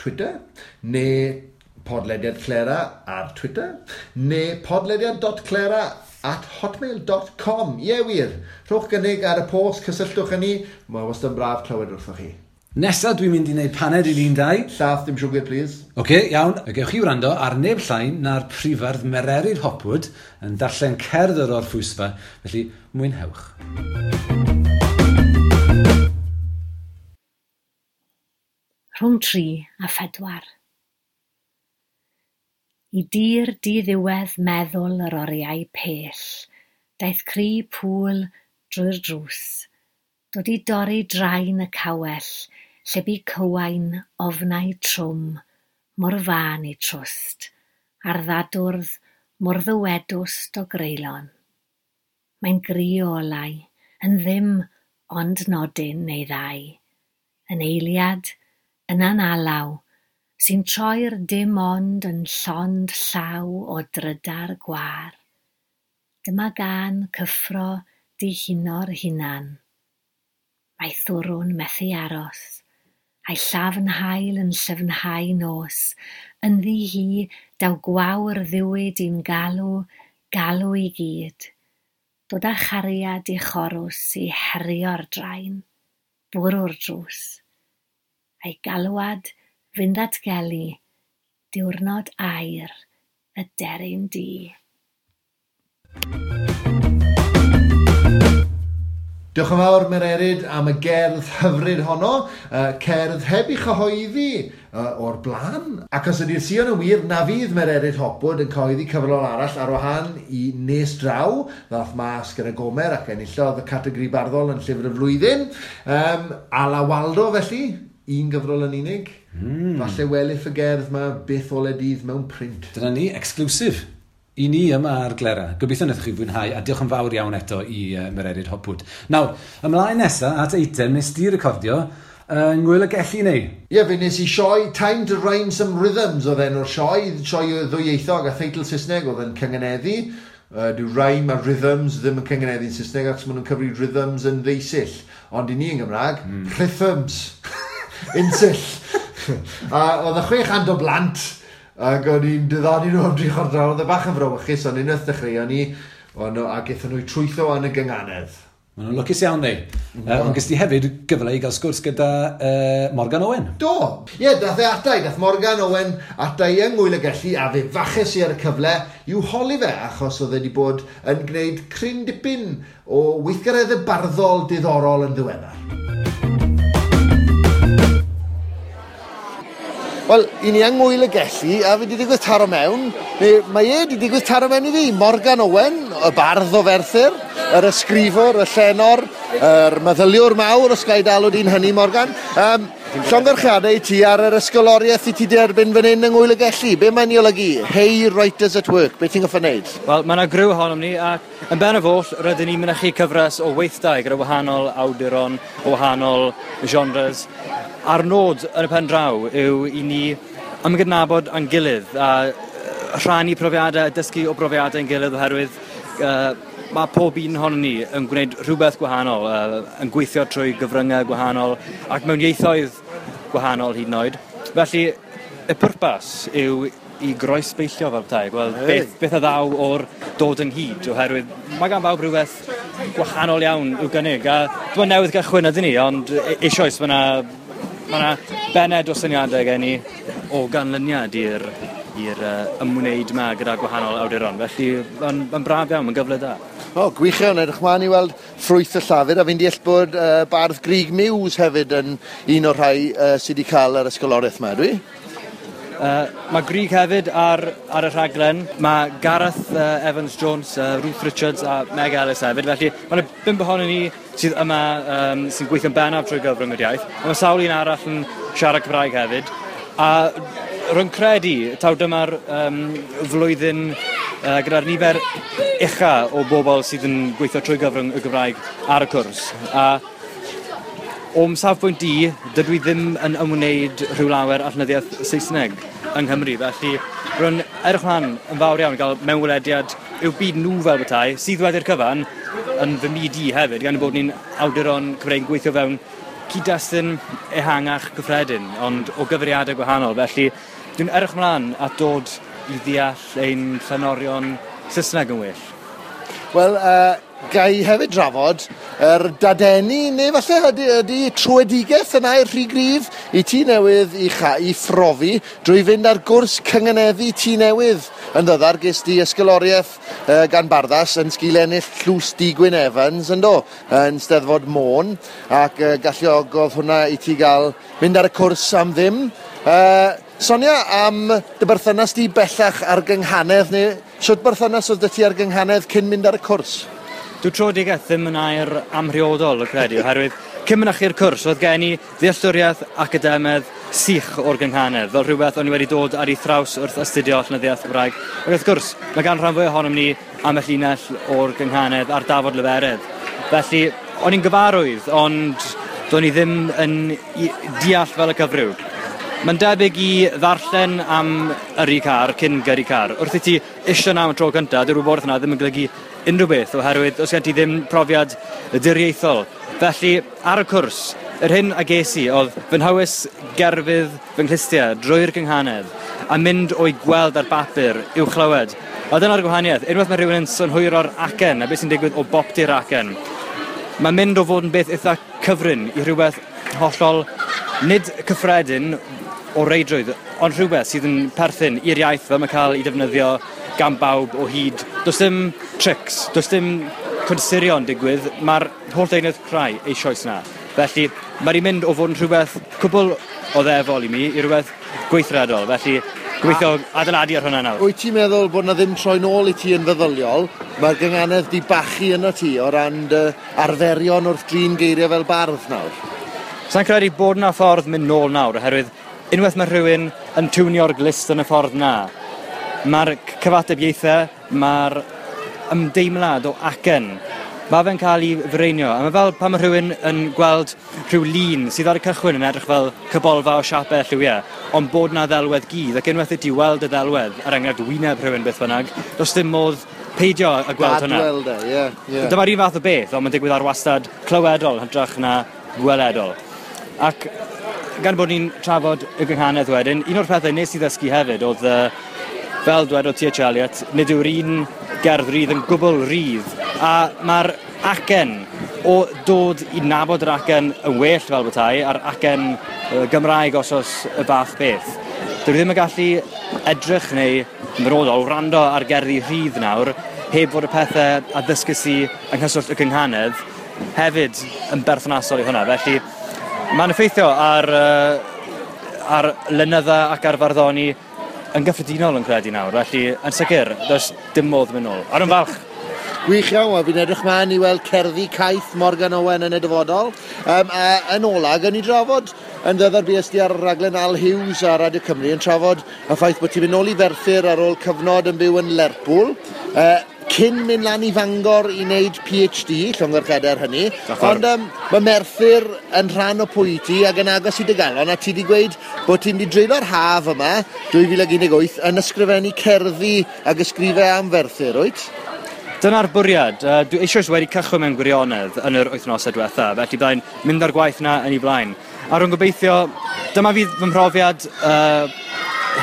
Twitter, neu podlediad Clera ar Twitter, neu podlediad.clera@hotmail.com. Ie wir, rhowch gynnig ar y post, cysylltwch â ni, mae wastad yn braf clywed wrthoch chi. Nesa dwi'n mynd i wneud paned i ni'n dau. Llath, dim siwgr, please. Oce, okay, iawn. Gewch chi wrando ar neb llai na'r prifardd Mererid Hopwood yn darllen cerdd yr orffwysfa, felly mwynhewch. Rhwng 3 a 4. I dir diddiwedd meddwl yr oriau pell, daeth cri pŵl drwy'r drws, dod i dorri draen y cawell, lle bu cywain ofnau trwm, mor fân eu trwst, a'r ddadwrdd mor ddywedwst o greulon. Mae'n gri o olau, yn ddim ond nodyn neu ddau, yn eiliad, yna'n alaw, sy'n troi'r dim ond yn llond llaw o drydar gwar. Dyma gân cyffro dihuno'r hunan. Mae thwrwn methu aros, a'i llafn haul yn llyfnhau nos. Ynddi hi daw gwawr ddiwyd i'n galw, galw i gyd. Dod â chariad i chorws i herio'r draen, bwrw'r drws. A'i galwad fynd ddatgelu diwrnod aur y deryn du. Diolch yn fawr, Mererid, am y gerdd hyfryd honno, cerdd heb ei chyhoeddi o'r blaen. Ac os ydy'r sïon yn wir, na fydd Mererid Hopwood yn cyhoeddi cyfrol arall ar wahân i Nes Draw, ddath mas gyda Gomer ac enillodd y categori barddol yn Llyfr y Flwyddyn. Ala Waldo, felly, un gyfrol yn unig. Falle welith y gerdd ma byth ole dydd mewn print. Dyna ni, exclusive i ni yma ar Glera. Gobeithio wnaethoch chi fwynhau, a diolch yn fawr iawn eto i Mererid Hopwood. Nawr, ymlaen nesa at eitem nes di recordio yng Ngŵyl y Gelli neu? Ie, fe nes i sioe Time to Rhyme Some Rhythms oedd enw'r sioe, sioe ddwyieithog a theitl Saesneg oedd yn cyngeneddu. Dyw rhyme a rhythms ddim yn cyngeneddu'n Saesneg achos maen nhw'n cyfri rhythms yn ddeusill. Ond i ni yn Gymraeg, rhythms. Unsill. A oedd y 600 o blant ac o'n i'n diddanu nhw am 3/4 awr. Oedd e bach yn frawychus, ond unwaith dechreuon ni, ac aethon nhw i trwytho yn y gynganedd. Maen nhw'n lwcus iawn, neu. Ond ges di hefyd gyfle i gael sgwrs gyda Morgan Owen. Do! Ie, dath e ata i, dath Morgan Owen ata i yng Ngŵyl y Gelli, a fe faches i ar y cyfle i'w holi fe, achos oedd e wedi bod yn gwneud cryn dipyn o weithgareddau barddol diddorol yn ddiweddar. Wel, i ni yng Ngŵyl y Gelli, a fi wedi digwydd taro mewn, neu mae e wedi digwydd taro mewn i fi, Morgan Owen, y bardd o Ferthyr, yr ysgrifwr, y llenor, yr meddyliwr mawr, os ga i dalw di'n hynny, Morgan. Llongyfarchiadau i ti ar yr ysgoloriaeth i ti derbyn fan hyn yng Ngŵyl y Gelli. Be mae'n ei olygu? Hey Writers at Work, be ti'n goffa wneud? Wel, mae yna griw ohonom ni, ac yn bennaf oll, rydyn ni'n mynychu cyfres o weithdai gyda wahanol awduron, o wahanol genres. A'r nod yn y pen draw yw i ni ymgydnabod â'n gilydd a rhannu profiadau a dysgu o brofiadau ein gilydd, oherwydd mae pob un ohonon ni yn gwneud rhywbeth gwahanol, yn gweithio trwy gyfryngau gwahanol ac mewn ieithoedd gwahanol hyd yn oed. Felly, y pwrpas yw i groesbeillio fel petai, gweld beth a ddaw o'r dod ynghyd, oherwydd mae gan bawb rhywbeth gwahanol iawn i'w gynnig. A dwi'n newydd gychwyn ydyn ni, ond eisoes mae yna bened o syniadau gen i o ganlyniad i'r ymwneud yma gyda gwahanol awduron. Felly mae'n braf iawn, mae'n gyfle da. O, gwych iawn, edrych mlaen i weld ffrwyth y llafur, a fi'n deall bod bardd Grug Muse hefyd yn un o'r rhai sydd wedi cael yr ysgoloriaeth yma, dwi? Mae Grug hefyd ar y rhaglen. Mae Gareth Evans Jones, Ruth Richards a Meg Ellis hefyd. Felly mae yna 5 ohonon ni sydd yma sy'n gweithio'n bennaf trwy gyfrwng yr iaith. Mae sawl un arall yn siarad Cymraeg hefyd. A rwy'n credu taw dyma'r flwyddyn gyda'r nifer ucha o bobl sydd yn gweithio trwy gyfrwng y Gymraeg ar y cwrs. A o'm safbwynt i, dydw i ddim yn ymwneud rhyw lawer â llenyddiaeth Saesneg yng Nghymru, felly rwy'n edrych mlaen yn fawr iawn i gael mewnwelediad i'w byd nhw fel petai, sydd wedi'r cyfan yn fy myd i hefyd, gan bod ni'n awduron Cymreig yn gweithio fewn cyd-destun ehangach gyffredin, ond o gyfeiriadau gwahanol. Felly dwi'n edrych mlaen at dod i ddeall ein llenorion Saesneg yn well. Wel, Gai hefyd drafod yr dadeni, neu falle ydy tröedigaeth yn air rhy gryf i ti newydd i phrofi drwy fynd ar gwrs cynganeddu Tŷ Newydd. Yn ddyddar ges di ysgoloriaeth gan Barddas yn sgil ennill Tlws D. Gwyn Evans, yndo, yn Steddfod Môn, ac galluogodd hwnna i ti gael mynd ar y cwrs am ddim. Sonia am dy berthynas di bellach ar gynghanedd, neu shwt berthynas oedd 'da ti ar gynghanedd cyn mynd ar y cwrs? Dyw tröedigaeth ddim yn air amhriodol, yn credu, oherwydd cyn mynychu'r cwrs oedd gen i ddealltwriaeth academaidd sych o'r gynghanedd, fel rhywbeth o'n i wedi dod ar ei thraws wrth astudio llenyddiaeth Gymraeg. Ac wrth gwrs, mae gan rhan fwyaf ohonom ni ambell linell o'r gynghanedd ar dafod leferydd. Felly, o'n i'n gyfarwydd, ond do'n i ddim yn deall fel y cyfryw. Mae'n debyg i ddarllen am yrru car cyn gyrru car. Wrth i ti isio 'na am y tro cyntaf, dyw'r wybodaeth yna ddim yn golygu unrhyw beth, oherwydd os gen ti ddim profiad diriaethol. Felly, ar y cwrs, yr hyn a ges i oedd fy nhywys gerfydd fy nghlustiau drwy'r gynghanedd a mynd o'i gweld ar bapur i'w chlywed. A dyna'r gwahaniaeth, unwaith mae rhywun yn synhwyro'r acen a beth sy'n digwydd o boptu'r acen, mae'n mynd o fod yn beth eitha cyfrin i rhywbeth hollol nid cyffredin o reidrwydd, ond rhywbeth sydd yn perthyn i'r iaith fel mae'n cael ei defnyddio gan bawb o hyd. Does dim tricks, does dim consurio'n digwydd, mae'r holl deunydd crai eisoes 'na. Felly, mae wedi mynd o fod yn rhywbeth cwbl oddefol i mi i rhywbeth gweithredol. Felly, gobeithio adeiladu ar hwnna nawr. Wyt ti'n meddwl bod 'na ddim troi nôl i ti yn feddyliol? Mae'r gynghanedd 'di bachu yno ti o ran dy arferion wrth drin geiriau fel bardd nawr? Sa i'n credu bod 'na ffordd mynd nôl nawr, oherwydd unwaith mae rhywun yn tiwnio'r glust yn y ffordd 'na, mae'r cyfatebiaethau, mae'r ymdeimlad o acen, mae fe'n cael ei fireinio. A mae fel pan mae rhywun yn gweld rhyw lun sydd ar y cychwyn yn edrych fel cybolfa o siapau lliwiau, ond bod 'na ddelwedd gudd, ac unwaith i ti weld y ddelwedd, er enghraifft wyneb rhywun beth bynnag, does dim modd peidio â gweld hwnna. Gad weld e, ie, ie. Dyma'r un fath o beth, ond mae'n digwydd ar wastad clywedol yn hytrach na gweledol. Ac gan bod ni'n trafod y gynghanedd wedyn, un o'r pethau nes i ddysgu hefyd oedd, fel dwedodd T.H. Eliot, nid yw'r un gerdd rydd yn gwbl rydd, a mae'r acen o dod i nabod yr acen yn well fel petai, a'r acen Gymraeg os oes y fath beth. Dwi ddim yn gallu edrych neu yn benodol wrando ar gerddi rhydd nawr heb fod y pethau a ddysges i yng nghyswllt y gynghanedd hefyd yn berthnasol i hwnna. Felly mae'n effeithio ar ar lenydda ac ar farddoni yn gyffredinol yn credu nawr. Felly yn sicr, does dim modd mynd nôl. A rwy'n falch. Gwych iawn, wel fi'n edrych mlaen i weld cerddi caeth Morgan Owen yn y dyfodol. A yn ola, gawn ni drafod yn ddyddor bues di ar raglen Al Hughes ar Radio Cymru yn trafod y ffaith bod ti'n mynd nôl i Ferthyr ar ôl cyfnod yn byw yn Lerpwl, cyn mynd lan i Fangor i wneud PhD, llongyfarchiadau ar hynny. Ond mae Merthyr yn rhan o pwy ti ac yn agos i dy galon, a ti wedi gweud bod ti'n mynd i dreulio'r haf yma, 2018, yn ysgrifennu cerddi ac ysgrifau am Ferthyr, wyt? Dyna'r bwriad. Dwi eisoes wedi cychwyn mewn gwirionedd yn yr wythnosau diwetha, felly byddai'n mynd â'r gwaith 'na yn ei blaen. A rwy'n gobeithio, dyma fydd fy mhrofiad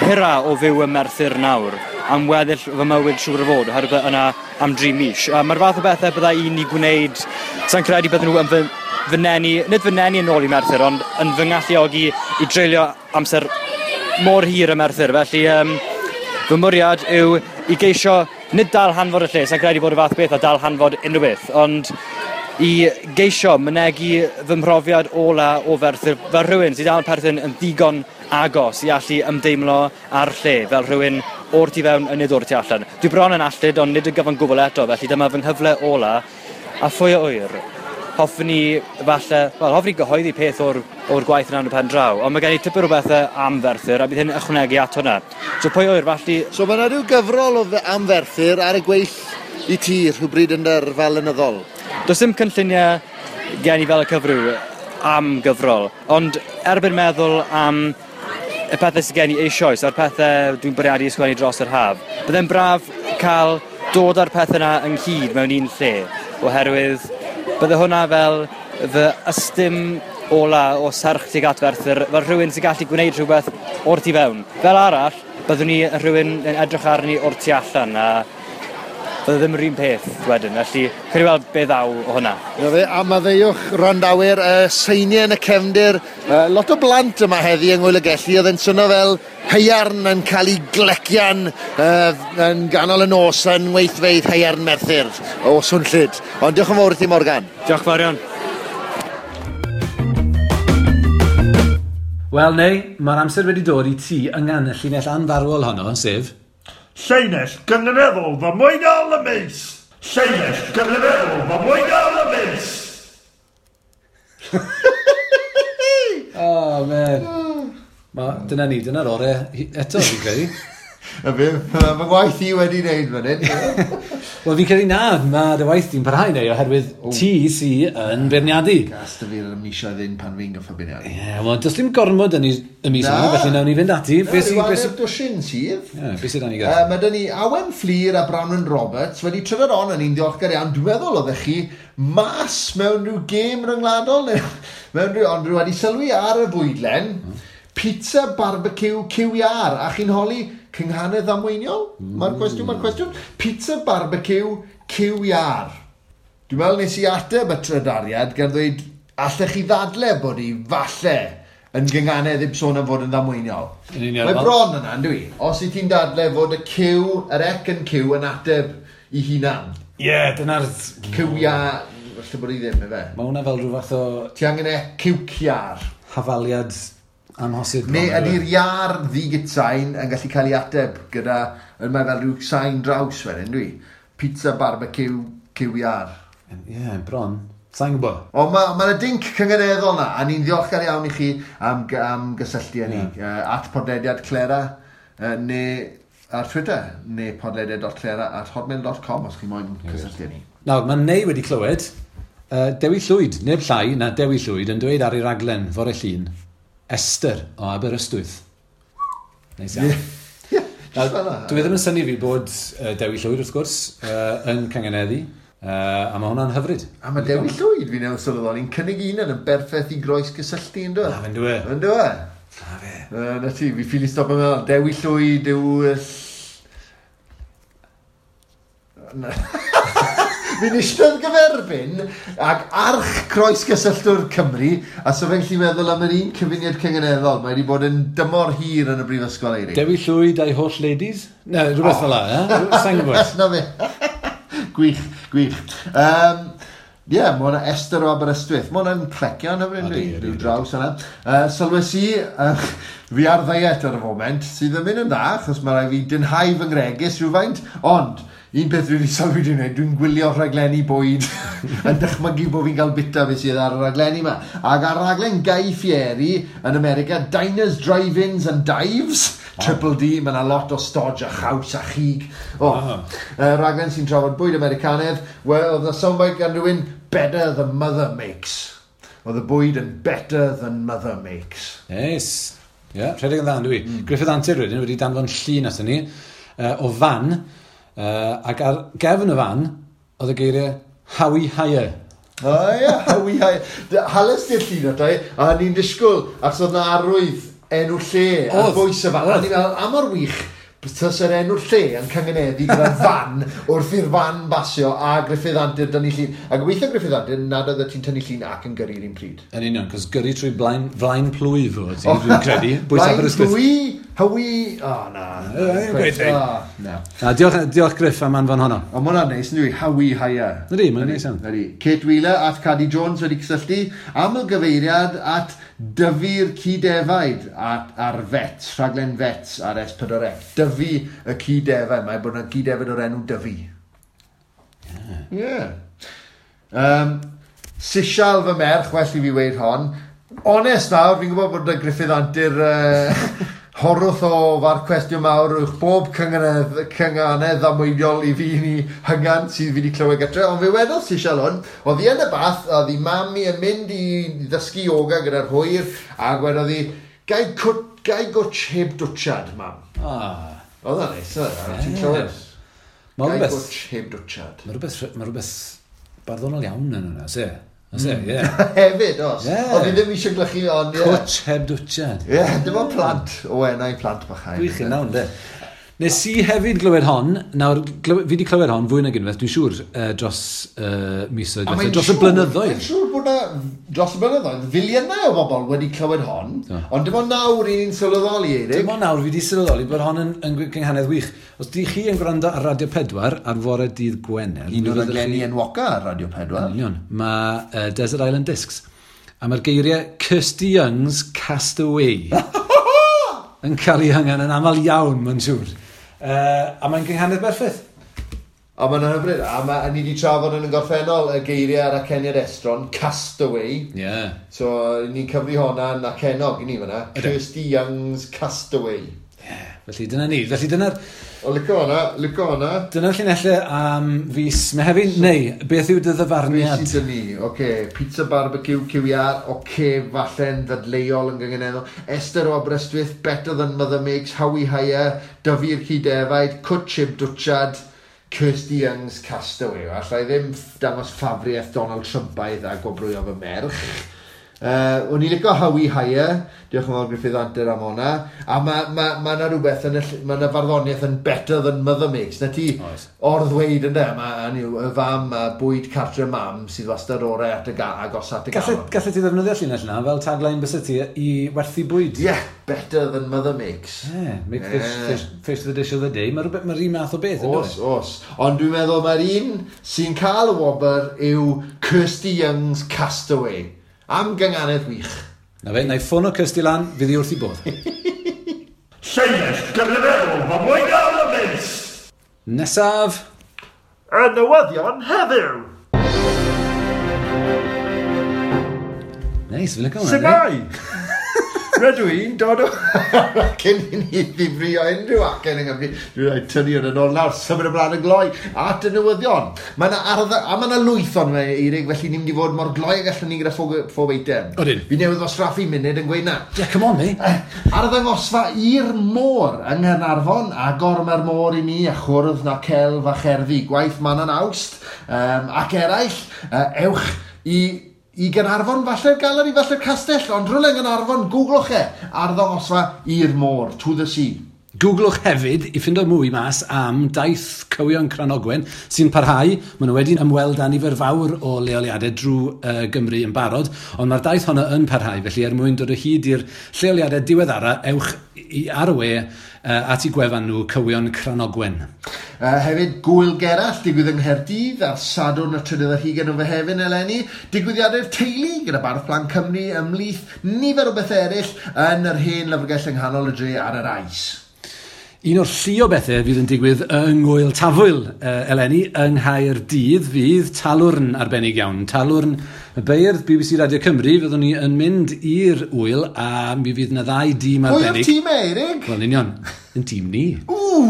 hira o fyw ym Merthyr nawr, am weddill fy mywyd siŵr o fod, oherwydd yna am 3 mis. A mae'r fath o bethau bydda i'n ei gwneud, sa'n credu bydden nhw yn fy nenu, nid fy nenu yn ôl i Merthyr, ond yn fy ngalluogi i dreulio amser mor hir ym Merthyr. Felly fy mwriad yw i geisio nid dal hanfod y lle, sa'n credu bod y fath beth a dal hanfod unrhyw beth, ond i geisio mynegi fy mhrofiad ola o Ferthyr fel rhywun sydd dal yn perthyn yn ddigon agos i allu ymdeimlo â'r lle, fel rhywun o'r tu fewn a nid o'r tu allan. Dwi bron yn alltud, ond nid yn gyfan gwbl eto, felly dyma fy nghyfle ola, a phwy a ŵyr, hoffwn i falle, wel, hoffwn i gyhoeddi peth o'r, o'r gwaith yna yn y pen draw, ond mae gen i tipyn o bethau am Ferthyr, a bydd hyn yn ychwanegu at hwnna. So pwy a ŵyr, falle... So mae yna rhyw gyfrol o am Ferthyr ar y gweill i ti rhywbryd yn yr yrfa lenyddol? Does dim cynlluniau gen i fel y cyfryw am gyfrol, ond erbyn meddwl am y pethau sydd gen i eisoes a'r pethau dwi'n bwriadu ysgrifennu dros yr haf, byddai'n braf cael dod â'r pethau yna ynghyd mewn un lle, oherwydd bydde hwnna fel fy ystym ola o serch tuag at Ferthyr, fel rhywun sy'n gallu gwneud rhywbeth o'r tu fewn. Fel arall, byddwn ni yn rhywun yn edrych arni o'r tu allan, a Bydde ddim yr un peth wedyn, felly credu weld be ddaw o hwnna. Na fe, a maddeuwch wrandawyr, seiniau yn y cefndir, lot o blant yma heddi yng Ngŵyl y Gelli, oedd e'n swnio fel haearn yn cael ei glecian yn ganol y nos yn weithfeydd haearn Merthyr o swnllyd. Ond diolch yn fawr i ti, Morgan. Diolch fawr iawn. Wel, neu, mae'r amser wedi dod i ti yngan y llinell anfarwol honno, sef... Llinell gynganeddol ddamweiniol y mis! Llinell gynganeddol ddamweiniol y mis! Oh, man. Dyna ni, dyna'r ore eto, fi'n credu. Y fe, mae fy ngwaith i wedi wneud fan hyn. Wel, fi'n credu na, mae dy waith di'n parhau neu, oherwydd ti sy yn beirniadu. Gas dy fi'r misoedd hyn pan fi'n gorfod beirniadu. Ie, yeah, wel, does dim gormod yn y mis yma, felly nawn ni fynd ati. Be sy'n hanner dwsin sydd. Ie, beth sydd ni gyda? Mae dyn ni Awen Fflur a Branwen Roberts wedi trydar on yn un ddiolchgar iawn. Dwi'n meddwl oeddech chi mas mewn rhyw gêm ryngwladol, neu mewn rhyw, ond rhyw wedi sylwi ar y fwydlen, pizza barbecue QR, a chi'n holi cynghanedd ddamweiniol? Mae'r cwestiwn, mae'r cwestiwn. Pizza barbecue QR. Dwi'n meddwl nes i ateb y trydariad gan ddweud, allech chi ddadle bod hi falle yn gynganedd heb sôn am fod yn ddamweiniol. Mae bron yna, yndw i? Os i ti'n dadle fod y Q, yr ec yn Q yn ateb i hunan. Ie, yeah, dyna'r... QR, falle bod hi ddim, efe. Mae hwnna fel rhyw fath o... Ti angen e QQR. Hafaliad amhosib. Neu ydy'r iar ddigitsain yn gallu cael ei ateb gyda, mae fel rhyw sain draws wedyn, dwi. Pizza barbecue QR. Ie, yeah, bron. Sa'n gwybod. Ond mae yna dinc cynganeddol na, a ni'n ddiolchgar iawn i chi am gysylltu â ni. Yeah. At podlediad Clera, neu ar Twitter, neu podlediad.clera@hotmail.com os chi moyn cysylltu â ni. Nawr, mae Neu wedi clywed Dewi Llwyd, neb llai na Dewi Llwyd, yn dweud ar ei raglen fore Llun, Esther o Aberystwyth. Neis iawn. Dwi ddim yn synnu fi bod Dewi Llwyd, wrth gwrs, yn cynganeddu, a mae hwnna'n hyfryd. A mae Dewi Llwyd, fi'n newydd sylweddoli, yn cynnig un yn berffaith i groes gysylltu, ynddo? Na, fe'n dwe. Yn dwe? Na fe. Na ti, fi ffili stop yn meddwl, Dewi Llwyd yw... Fi'n eistedd gyferbyn ag arch croes gysylltwr Cymru, a so fe'n gallu meddwl am yr un cyfuniad cynganeddol. Mae wedi bod yn dymor hir yn y brifysgol, Eirig. Dewi Llwyd a'i holl ladies? Na, rhywbeth fel la, eh? Sa'n gwybod. Na fe. Gwych, gwych. Ie, mae hwnna Esther o Aberystwyth. Mae hwnna'n clecian hyfryd, rhyw draws yna. Sylwes i, fi ar ddiet ar y foment, sydd yn mynd yn dda, achos mae rhaid fi dynhau fy ngregys rhywfaint, ond un peth dwi wedi sylwi dwi'n gwneud, dwi'n gwylio rhaglenni bwyd yn dychmygu bod fi'n cael bita beth sydd ar y rhaglenni yma. Ac ar raglen Guy Fieri yn America, Diners, Drive-Ins and Dives, Triple D, mae yna lot o stodge a chaws a chig. Raglen sy'n trafod bwyd Americanedd, wel, oedd yna soundbite gan rhywun, better than mother makes. Oedd y bwyd yn better than mother makes. Yes. Ie, yeah, rhedeg yn dda, dwi. Griffith Antur wedyn wedi danfon llun aton ni o fan, ac ar gefn y fan, oedd y geiriau Howie Hire. O ie, Howie Hire. Hanes di'r llun ato i, a ni'n disgwyl, achos oedd na arwydd enw lle ar bwys y fan. A ni'n meddwl, am o'r wych, tas yr enw'r lle yn cyngeneddu gyda'r fan wrth i'r fan basio a Griffith Antur dynnu llun. A gobeithio Griffith Antur nad oedd ti'n tynnu llun ac yn gyrru'r un pryd. Yn union, cos gyrru trwy flaen plwyf oedd ti, dwi'n credu. Bwys Aberystwyth. Blaen plwy, Howie... O, na. Na, diolch Griff am anfon honno. Ond ma' hwnna'n neis, yndw i? Howie Hire. Ydy, mae'n neis iawn. Ydy. Kate Wheeler at Cadi Jones wedi cysylltu. Aml gyfeiriad at Dyfu'r Cydefaid ar Vets, rhaglen Vets ar S4C. Dyfu y Cydefaid. Mae bod yna Cydefaid o'r enw Dyfu. Ie. Sisial fy merch, well i fi weud hon. Onest nawr, fi'n gwybod bod y Griffith Antur horwth o farc cwestiwn mawr uwch bob cynganedd ddamweiniol i fi ni hyngan sydd fi wedi clywed gytre, ond fe wedodd Sisial hwn, oedd hi yn y bath, oedd hi mam i yn mynd i ddysgu yoga gyda'r hwyr, a gwedodd hi, gai gwtsh heb dwtsiad, mam. Oedd o'n neis, oedd o'n ti'n clywed. Gai gwtsh heb dwtsiad. Mae rhywbeth barddonol iawn yn hwnna, se? Oes e, ie. Hefyd, os. Oedd fi ddim eisiau glychu, ond ie. Cwtsh heb dwtsiad. Ie, dim ond plant, o enau plant bychain. Gwych yn nawn, de. Nes i hefyd glywed hon, nawr, fi wedi clywed hon fwy nag unwaith, dwi'n siŵr, dros misoedd, dros y blynyddoedd. Mae'n siŵr bod na, dros y blynyddoedd, filiynau o bobl wedi clywed hon, ond dim ond nawr i ni'n sylweddoli, Eirig. Dim ond nawr fi wedi sylweddoli bod hon yn gynghanedd wych. Os di chi yn gwrando ar Radio 4 ar fore dydd Gwener... Un o'r raglenni enwoca ar Radio 4. Yn union. Mae Desert Island Discs. A mae'r geiriau Kirsty Young's Castaway yn cael ei hyngan yn aml iawn, mae'n siŵr. A mae'n gynghanedd berffaith. A mae'n hyfryd. A ni wedi trafod yn y gorffennol y geiriau ar aceniad estron, Castaway. Yeah. So, ni'n cyfri hwnna'n acennog i ni fyna. Kirsty Young's Castaway. Yeah. Felly dyna ni. Felly dyna'r... O, licio hwnna, licio hwnna. Dyna'r llinellau am fis Mehefin. Neu, beth yw dy ddyfarniad? Beth sydd ni? Oce, pizza barbecue, QER, oce, falle'n ddadleuol yn gynganeddol. Esther o Aberystwyth, Better Than Mother Makes, Howie Hire, Dyfu'r Cydefaid, Cwtshib Dwtshad, Kirsty Young's Castaway. Alla i ddim dangos ffafriaeth Donald Trumpaidd a gwobrwyo fy merch. O'n i'n licio Howie Hire, diolch yn fawr Gruffydd Antur am hwnna, a ma 'na rhywbeth yn ma 'na farddoniaeth yn Better Than Mother Makes, na ti orddweud ynde, ma' y fam a bwyd cartre mam sydd wastad orau at y agos at y galon. Gallet ti ddefnyddio llinell yna fel tagline byse ti i werthu bwyd? Yeah, Better Than Mother Makes. Yeah, make fish the dish of the day, mae'r un math o beth. Os, os. Ond dwi'n meddwl mae'r un sy'n cael y wobr yw Kirsty Young's Castaway. Am gynganedd wych. Na fe, na i ffono Kirsty lan, fydd hi wrth i bodd. Llinell gynganeddol ddamweiniol y mis! Nesaf! Y newyddion heddiw! Neis, fi'n licio hwnna. Shwmae! Rydw i'n dod o... Cyn i ni ddifrio unrhyw acen yng Nghymru, dwi'n rhaid tynnu hwn yn ôl nawr, symud ymlaen yn gloi at y newyddion. Mae yna a mae yna lwyth ond fe, Eirig, felly ni'n mynd i fod mor gloi ag allwn ni gyda phob eitem. Odyn. Fi newydd ddosraffu munud yn gweud na. Yeah, come on, mate. Arddangosfa i'r môr yng Nghaernarfon, agor mae'r môr i ni, a chwrdd na celf a cherddi, gwaith Manon Awst, ac eraill, ewch i Gaernarfon, falle'r galeri, falle'r castell, ond rhywle yng Nghaernarfon, googlwch e, arddangosfa i'r môr, to the sea. Googlwch hefyd i ffindo mwy mas am daith Cywion Cranogwen sy'n parhau. Maen nhw wedi ymweld â nifer fawr o leoliadau drwy Gymru yn barod, ond mae'r daith honno yn parhau, felly er mwyn dod o hyd i'r lleoliadau diweddara, ewch ar y we at eu gwefan nhw Cywion Cranogwen. Hefyd, Gwyl Gerallt, digwydd yng Nghaerdydd ar Sadwrn y 23 o Fehefin eleni. Digwyddiadau'r teulu gyda Bardd Plant Cymru ymhlith nifer o bethau eraill yn yr hen lyfrgell yng nghanol y dre ar yr Ais. Un o'r llu o bethau fydd yn digwydd yng Ngwyl Tafwyl eleni yng Nghaerdydd fydd talwrn arbennig iawn. Talwrn y beirdd BBC Radio Cymru, fyddwn ni yn mynd i'r wyl a mi fydd yna ddau dîm arbennig. Pwy o'r tîm, Eirig? Wel, union, yn tîm ni. Ww!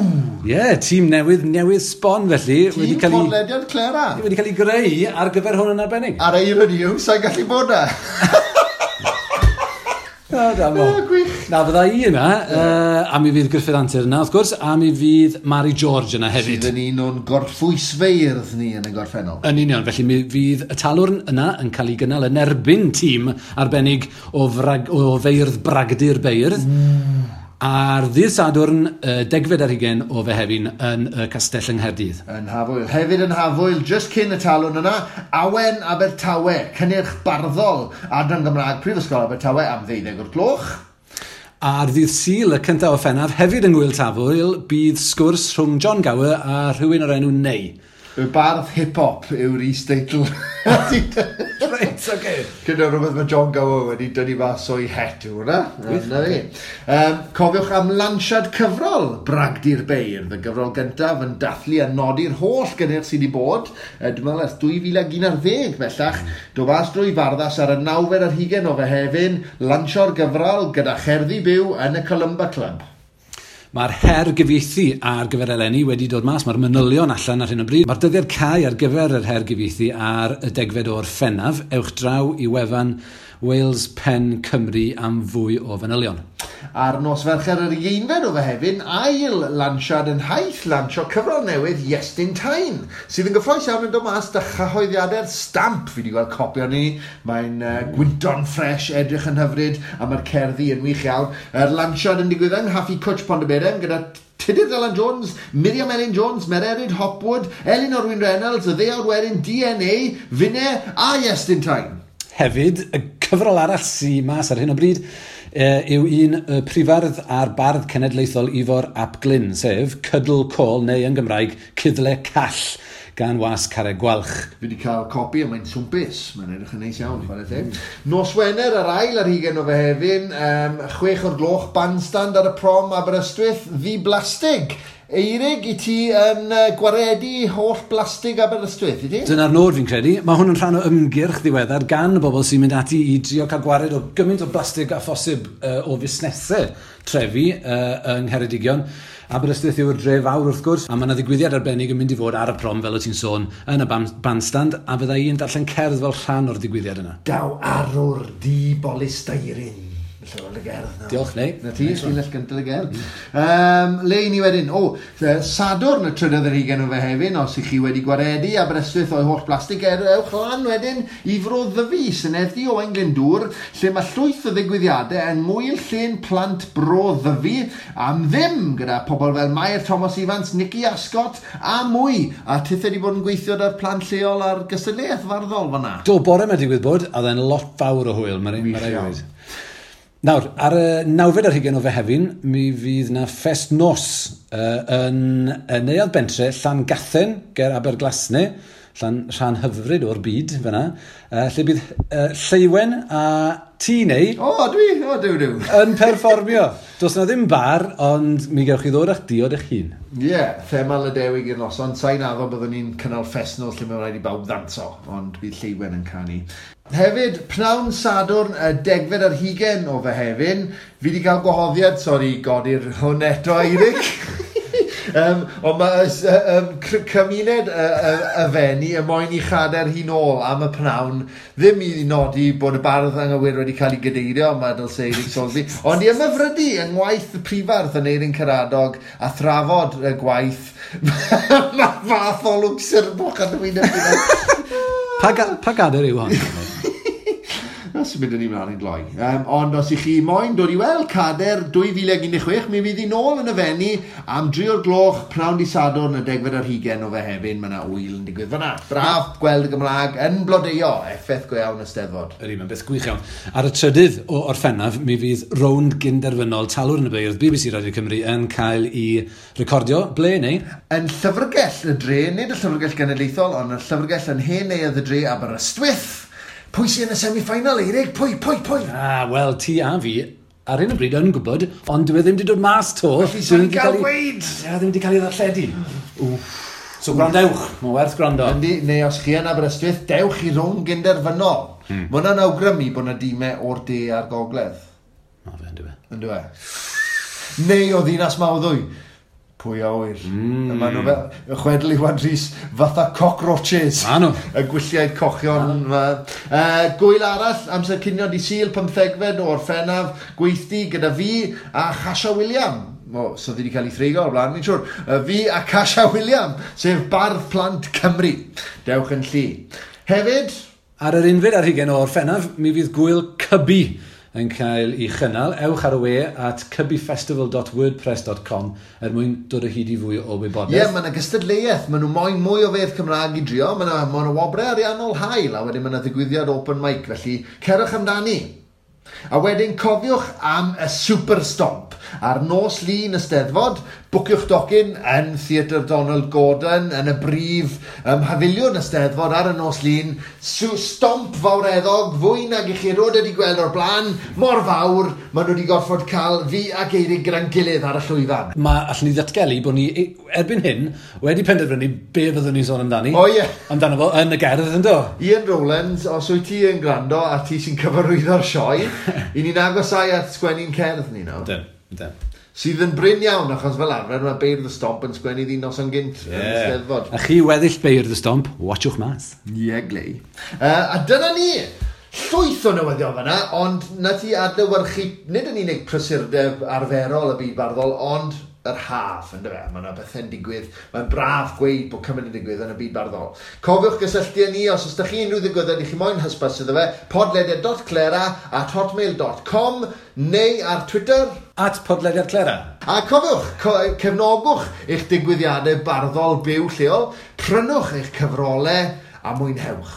Ie, tîm newydd sbon felly. Tîm podlediad Clera. Wedi cael ei greu ar gyfer hwn yn arbennig. Ar irony yw, sa'n gallu bod na. Gwych. Na, fydda i yna, a mi fydd Gruffydd Antur yna, wrth gwrs, a mi fydd Mari George yna hefyd. Sydd yn un o'n gorffwysfeirdd ni yn y gorffennol. Yn union, felly mi fydd y talwrn yna yn cael ei gynnal yn erbyn tîm arbennig o feirdd bragdy'r beirdd. Ar ddydd Sadwrn, 10 o Fehefin yn y castell yng Nghaerdydd. Yn Hafwyl. Hefyd yn Hafwyl, just cyn y talwrn yna, Awen Abertawe, cynnyrch barddol, Adran Gymraeg Prifysgol Abertawe am 12:00. Ar ddydd Sul, y 1 o Ffenaf, hefyd yng Ngwyl Tafwyl, bydd sgwrs rhwng John Gower a rhywun o'r enw Ney. Y bardd hip-hop yw'r is-deitl. Reit, oce. Gyda rhywbeth mae John Gower wedi dynnu mas o'i het yw hwnna. Na fi. Cofiwch am lansiad cyfrol Bragdy'r Beirdd, y gyfrol gyntaf yn dathlu a nodi'r holl gynnyrch sydd wedi bod. Dwi'n meddwl ers 2011 bellach. Do fas drwy Farddas ar y 29 o Fehefin, lansio'r gyfrol gyda cherddi byw yn y Columba Club. Mae'r her gyfieithu ar gyfer eleni wedi dod mas, mae'r manylion allan ar hyn o bryd. Mae'r dyddiad cau ar gyfer yr her gyfieithu ar y 10 o'r Ffenaf. Ewch draw i wefan Wales Pen Cymru am fwy o fanylion. Ar nos Fercher yr 11 o Fehefin, ail lansiad yn haith lansio cyfrol newydd Iestyn Tyne, sydd yn gyffrous iawn yn dod mas da chyhoeddiadau'r Stamp. Fi wedi gweld copi o'n ni. Mae'n gwynto'n ffres, edrych yn hyfryd, a mae'r cerddi yn wych iawn. Yr lansiad yn digwydd yng Nghaffi Cwtch Pontyberem gyda Tudur Dylan Jones, Miriam Elin Jones, Mererid Hopwood, Elin Orwin Reynolds, y ddeuawd werin DNA, Finne a Iestyn Tyne. Hefyd, y cyfrol arall sy'n mas ar hyn o bryd yw un y prifardd a'r bardd cenedlaethol Ifor ap Glyn, sef Cydl Côl, neu yn Gymraeg, Cydle Call, gan was Carreg Gwalch. Fi wedi cael copi a mae'n swmpus. Mae'n edrych yn neis iawn, chwarae teg. Nos Wener, yr ail ar hugen o Fehefin, 6 o'r gloch, bandstand ar y prom Aberystwyth, ddi blastig. Eirig, i ti yn gwaredu holl blastig Aberystwyth, i ti? Dyna'r nod fi'n credu. Mae hwn yn rhan o ymgyrch ddiweddar gan y bobl sy'n mynd ati i drio cael gwared o gymaint o blastig a phosib o fusnesau trefi yng Ngheredigion. Aberystwyth yw'r dre fawr wrth gwrs, a mae yna ddigwyddiad arbennig yn mynd i fod ar y prom, fel o ti'n sôn, yn y bandstand, a fydda i'n darllen cerdd fel rhan o'r digwyddiad yna. Daw arwr di bolisteirin. Felly, y gerdd nawr. Diolch, Neu. Na ti, llinell gyntaf y gerdd. Le i ni wedyn? O, Sadwrn y trydydd ar hugen o Fehefin, os ych chi wedi gwaredu Aberystwyth o'i holl blastig, ewch lan wedyn i Fro Ddyfi, Senedd-dy Owain Glyndŵr, lle mae llwyth o ddigwyddiadau yng Ngŵyl Llên Plant Bro Ddyfi am ddim, gyda pobl fel Mair Thomas Evans, Nicky Ascot a mwy. A tithe wedi bod yn gweithio da'r plant lleol ar gystadleuaeth farddol fan'na. Do, bore 'ma digwydd bod, a oedd e'n lot fawr o hwyl, mae'n Wych rhaid iawn. gweud. Nawr, ar y nawfed ar hugen o Fehefin, mi fydd na ffest nos yn y Neuadd Bentre, Llangathen, ger Aberglasne, rhan hyfryd o'r byd fyna, lle bydd Lleuwen a ti neu O, dwi, o, duw, duw. yn perfformio. Does na ddim bar, ond mi gewch chi ddod â'ch diod eich hun. Ie, yeah, thema Lydewig i'r noson. Sa'n addo byddwn ni'n cynnal ffest nos lle mae'n rhaid i bawb ddanso, ond bydd Lleuwen yn canu. Hefyd, pnawn Sadwrn, y 10fed ar hugen o Fehefin, fi wedi cael gwahoddiad, sori, godi'r hwn eto, Eirig. Ond mae cymuned y Fenni y moyn i chader hi nôl am y pnawn, ddim i nodi bod y bardd anghywir wedi cael ei gadeirio, mae dylse Eirig Soulsby, ond i ymhyfrydu yng ngwaith y prifardd yn Eirin Caradog a thrafod y gwaith. Mae fath o lwc sirbwch a dwi'n ymwneud. Pa gader yw hon? Na, sy'n mynd yn ei mlaen i'n gloi. Ond os ych chi moyn dod i weld Cader 2016, mi fydd hi nôl yn y Fenni am 3 o'r gloch, pnawn di Sadwrn, y 10fed ar hugen o Fehefin. Mae yna ŵyl yn digwydd fan'na. Braf gweld y Gymraeg yn blodeuo, effaith go iawn y Steddfod. Ydy, mae'n beth gwych iawn. Ar y trydydd o Orffennaf, mi fydd rownd gynderfynol Talwrn y Beirdd BBC Radio Cymru yn cael ei recordio. Ble neu? Yn llyfrgell y dre, nid y llyfrgell genedlaethol, ond y llyfrgell yn hen neuadd y dre Aberystwyth. Pwy sy'n yn y semi-final, Eirig? Pwy, pwy, pwy? Ah, wel, ti a fi ar hyn o bryd yn gwybod, ond dwi e ddim wedi dod mas to. Felly, sa'n ni'n cael gweud? Ie, ddim wedi cael ei ddarlledu. So gwrandewch, mae'n werth gwrando. Yndi, neu os chi yn Aberystwyth, dewch i rownd gynderfynol. Mae hwnna'n awgrymu bod yna dimau o'r de a'r gogledd. Ma fe, yndyw e. Yndyw e? Neu o Ddinas Mawddwy. Pwy a ŵyr. Maen nhw fel, chwedl Iwan Rhys, fatha cockroaches. Ma' nhw. Y gwylliaid cochion. Gwyl arall, amser cinio di Sul, 15fed o Orffennaf, gweithdy gyda fi a Chasha William. O, so ddi wedi cael ei threigo o'r blaen, ni'n siŵr. Fi a Chasha William, sef Bardd Plant Cymru. Dewch yn llu. Hefyd, Ar yr unfed ar hugen o Orffennaf, mi fydd gwyl Cybi yn cael ei chynnal. Ewch ar y we at cybyfestival.wordpress.com er mwyn dod o hyd i fwy o wybodaeth. Ie, yeah, mae yna gystadleuaeth. Maen nhw moyn mwy o fedd Cymraeg i drio. Mae yna ma wobrau ariannol hael, a wedyn mae yna ddigwyddiad open mic, felly cerwch amdani. A wedyn cofiwch am y Super Stomp. Ar nos Lun y Steddfod, bwciwch docyn yn Theatr Donald Gordon, yn y brif mhafiliwn y Steddfod ar y nos Lun. Stomp fawreddog, fwy nag i chi erioed wedi gweld o'r blaen, mor fawr, maen nhw wedi gorfod cael fi ac Eirig gyda'n gilydd ar y llwyfan. Mae allan ni ddatgelu bod ni erbyn hyn wedi penderfynu be fyddwn ni'n sôn amdani. O, ie. Amdano fo yn y gerdd, yndo? Ian Rowlands, os wyt ti yn gwrando a ti sy'n cyfarwyddo'r sioe, i ni'n agosau at sgwennu'n cerdd ni nawr. Ydyn, ydyn. Sydd yn brin iawn, achos fel arfer mae beirdd y Stomp yn sgwennu ddi noson gynt yn y Steddfod. A chi weddill beirdd y Stomp, watchwch mas. Ie, glei. A dyna ni! Llwyth o newyddion fan'na, ond na ti adlewyrchu, nid yn unig prysurdeb arferol y byd barddol, ond yr haf, yndyfe? Mae yna bethau'n digwydd. Mae'n braf gweud bod cymaint yn digwydd yn y byd barddol. Cofiwch gysylltu â ni os oes 'da chi unrhyw ddigwyddiad i chi moyn hysbys iddo fe, podlediad.clera@hotmail.com neu ar Twitter @podlediadclera. A cofiwch, cefnogwch eich digwyddiadau barddol byw lleol, prynwch eich cyfrolau a mwynhewch.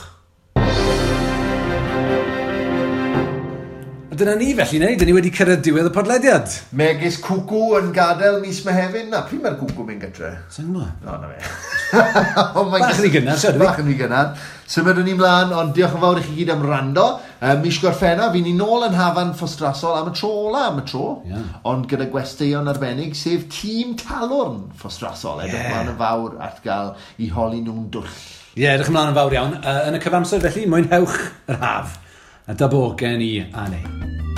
A dyna ni felly, neu? Dyn ni wedi cyrraedd diwedd y podlediad. Megis cwcw yn gadael mis Mehefin. Na, pryd mae'r cwcw mynd gytre? Sa'n gwybod? O, na fe. Bach yn rhy gynnar, siarad fi. Bach yn rhy gynnar. Symudwn ni mlaen, ond diolch yn fawr i chi gyd am rando. Mis Gorffennaf, fi ni nôl yn Hafan Ffostrasol am y tro ola am y tro. Yeah. Ond gyda gwesteion arbennig, sef tîm Talwrn Ffostrasol. Edrych mlaen yn fawr at gael i holi nhw'n dwll. Ie, yeah, edrych ymlaen yn fawr iawn. Yn y cyfamser felly, mwynhewch yr haf. A da bo gen i a neu.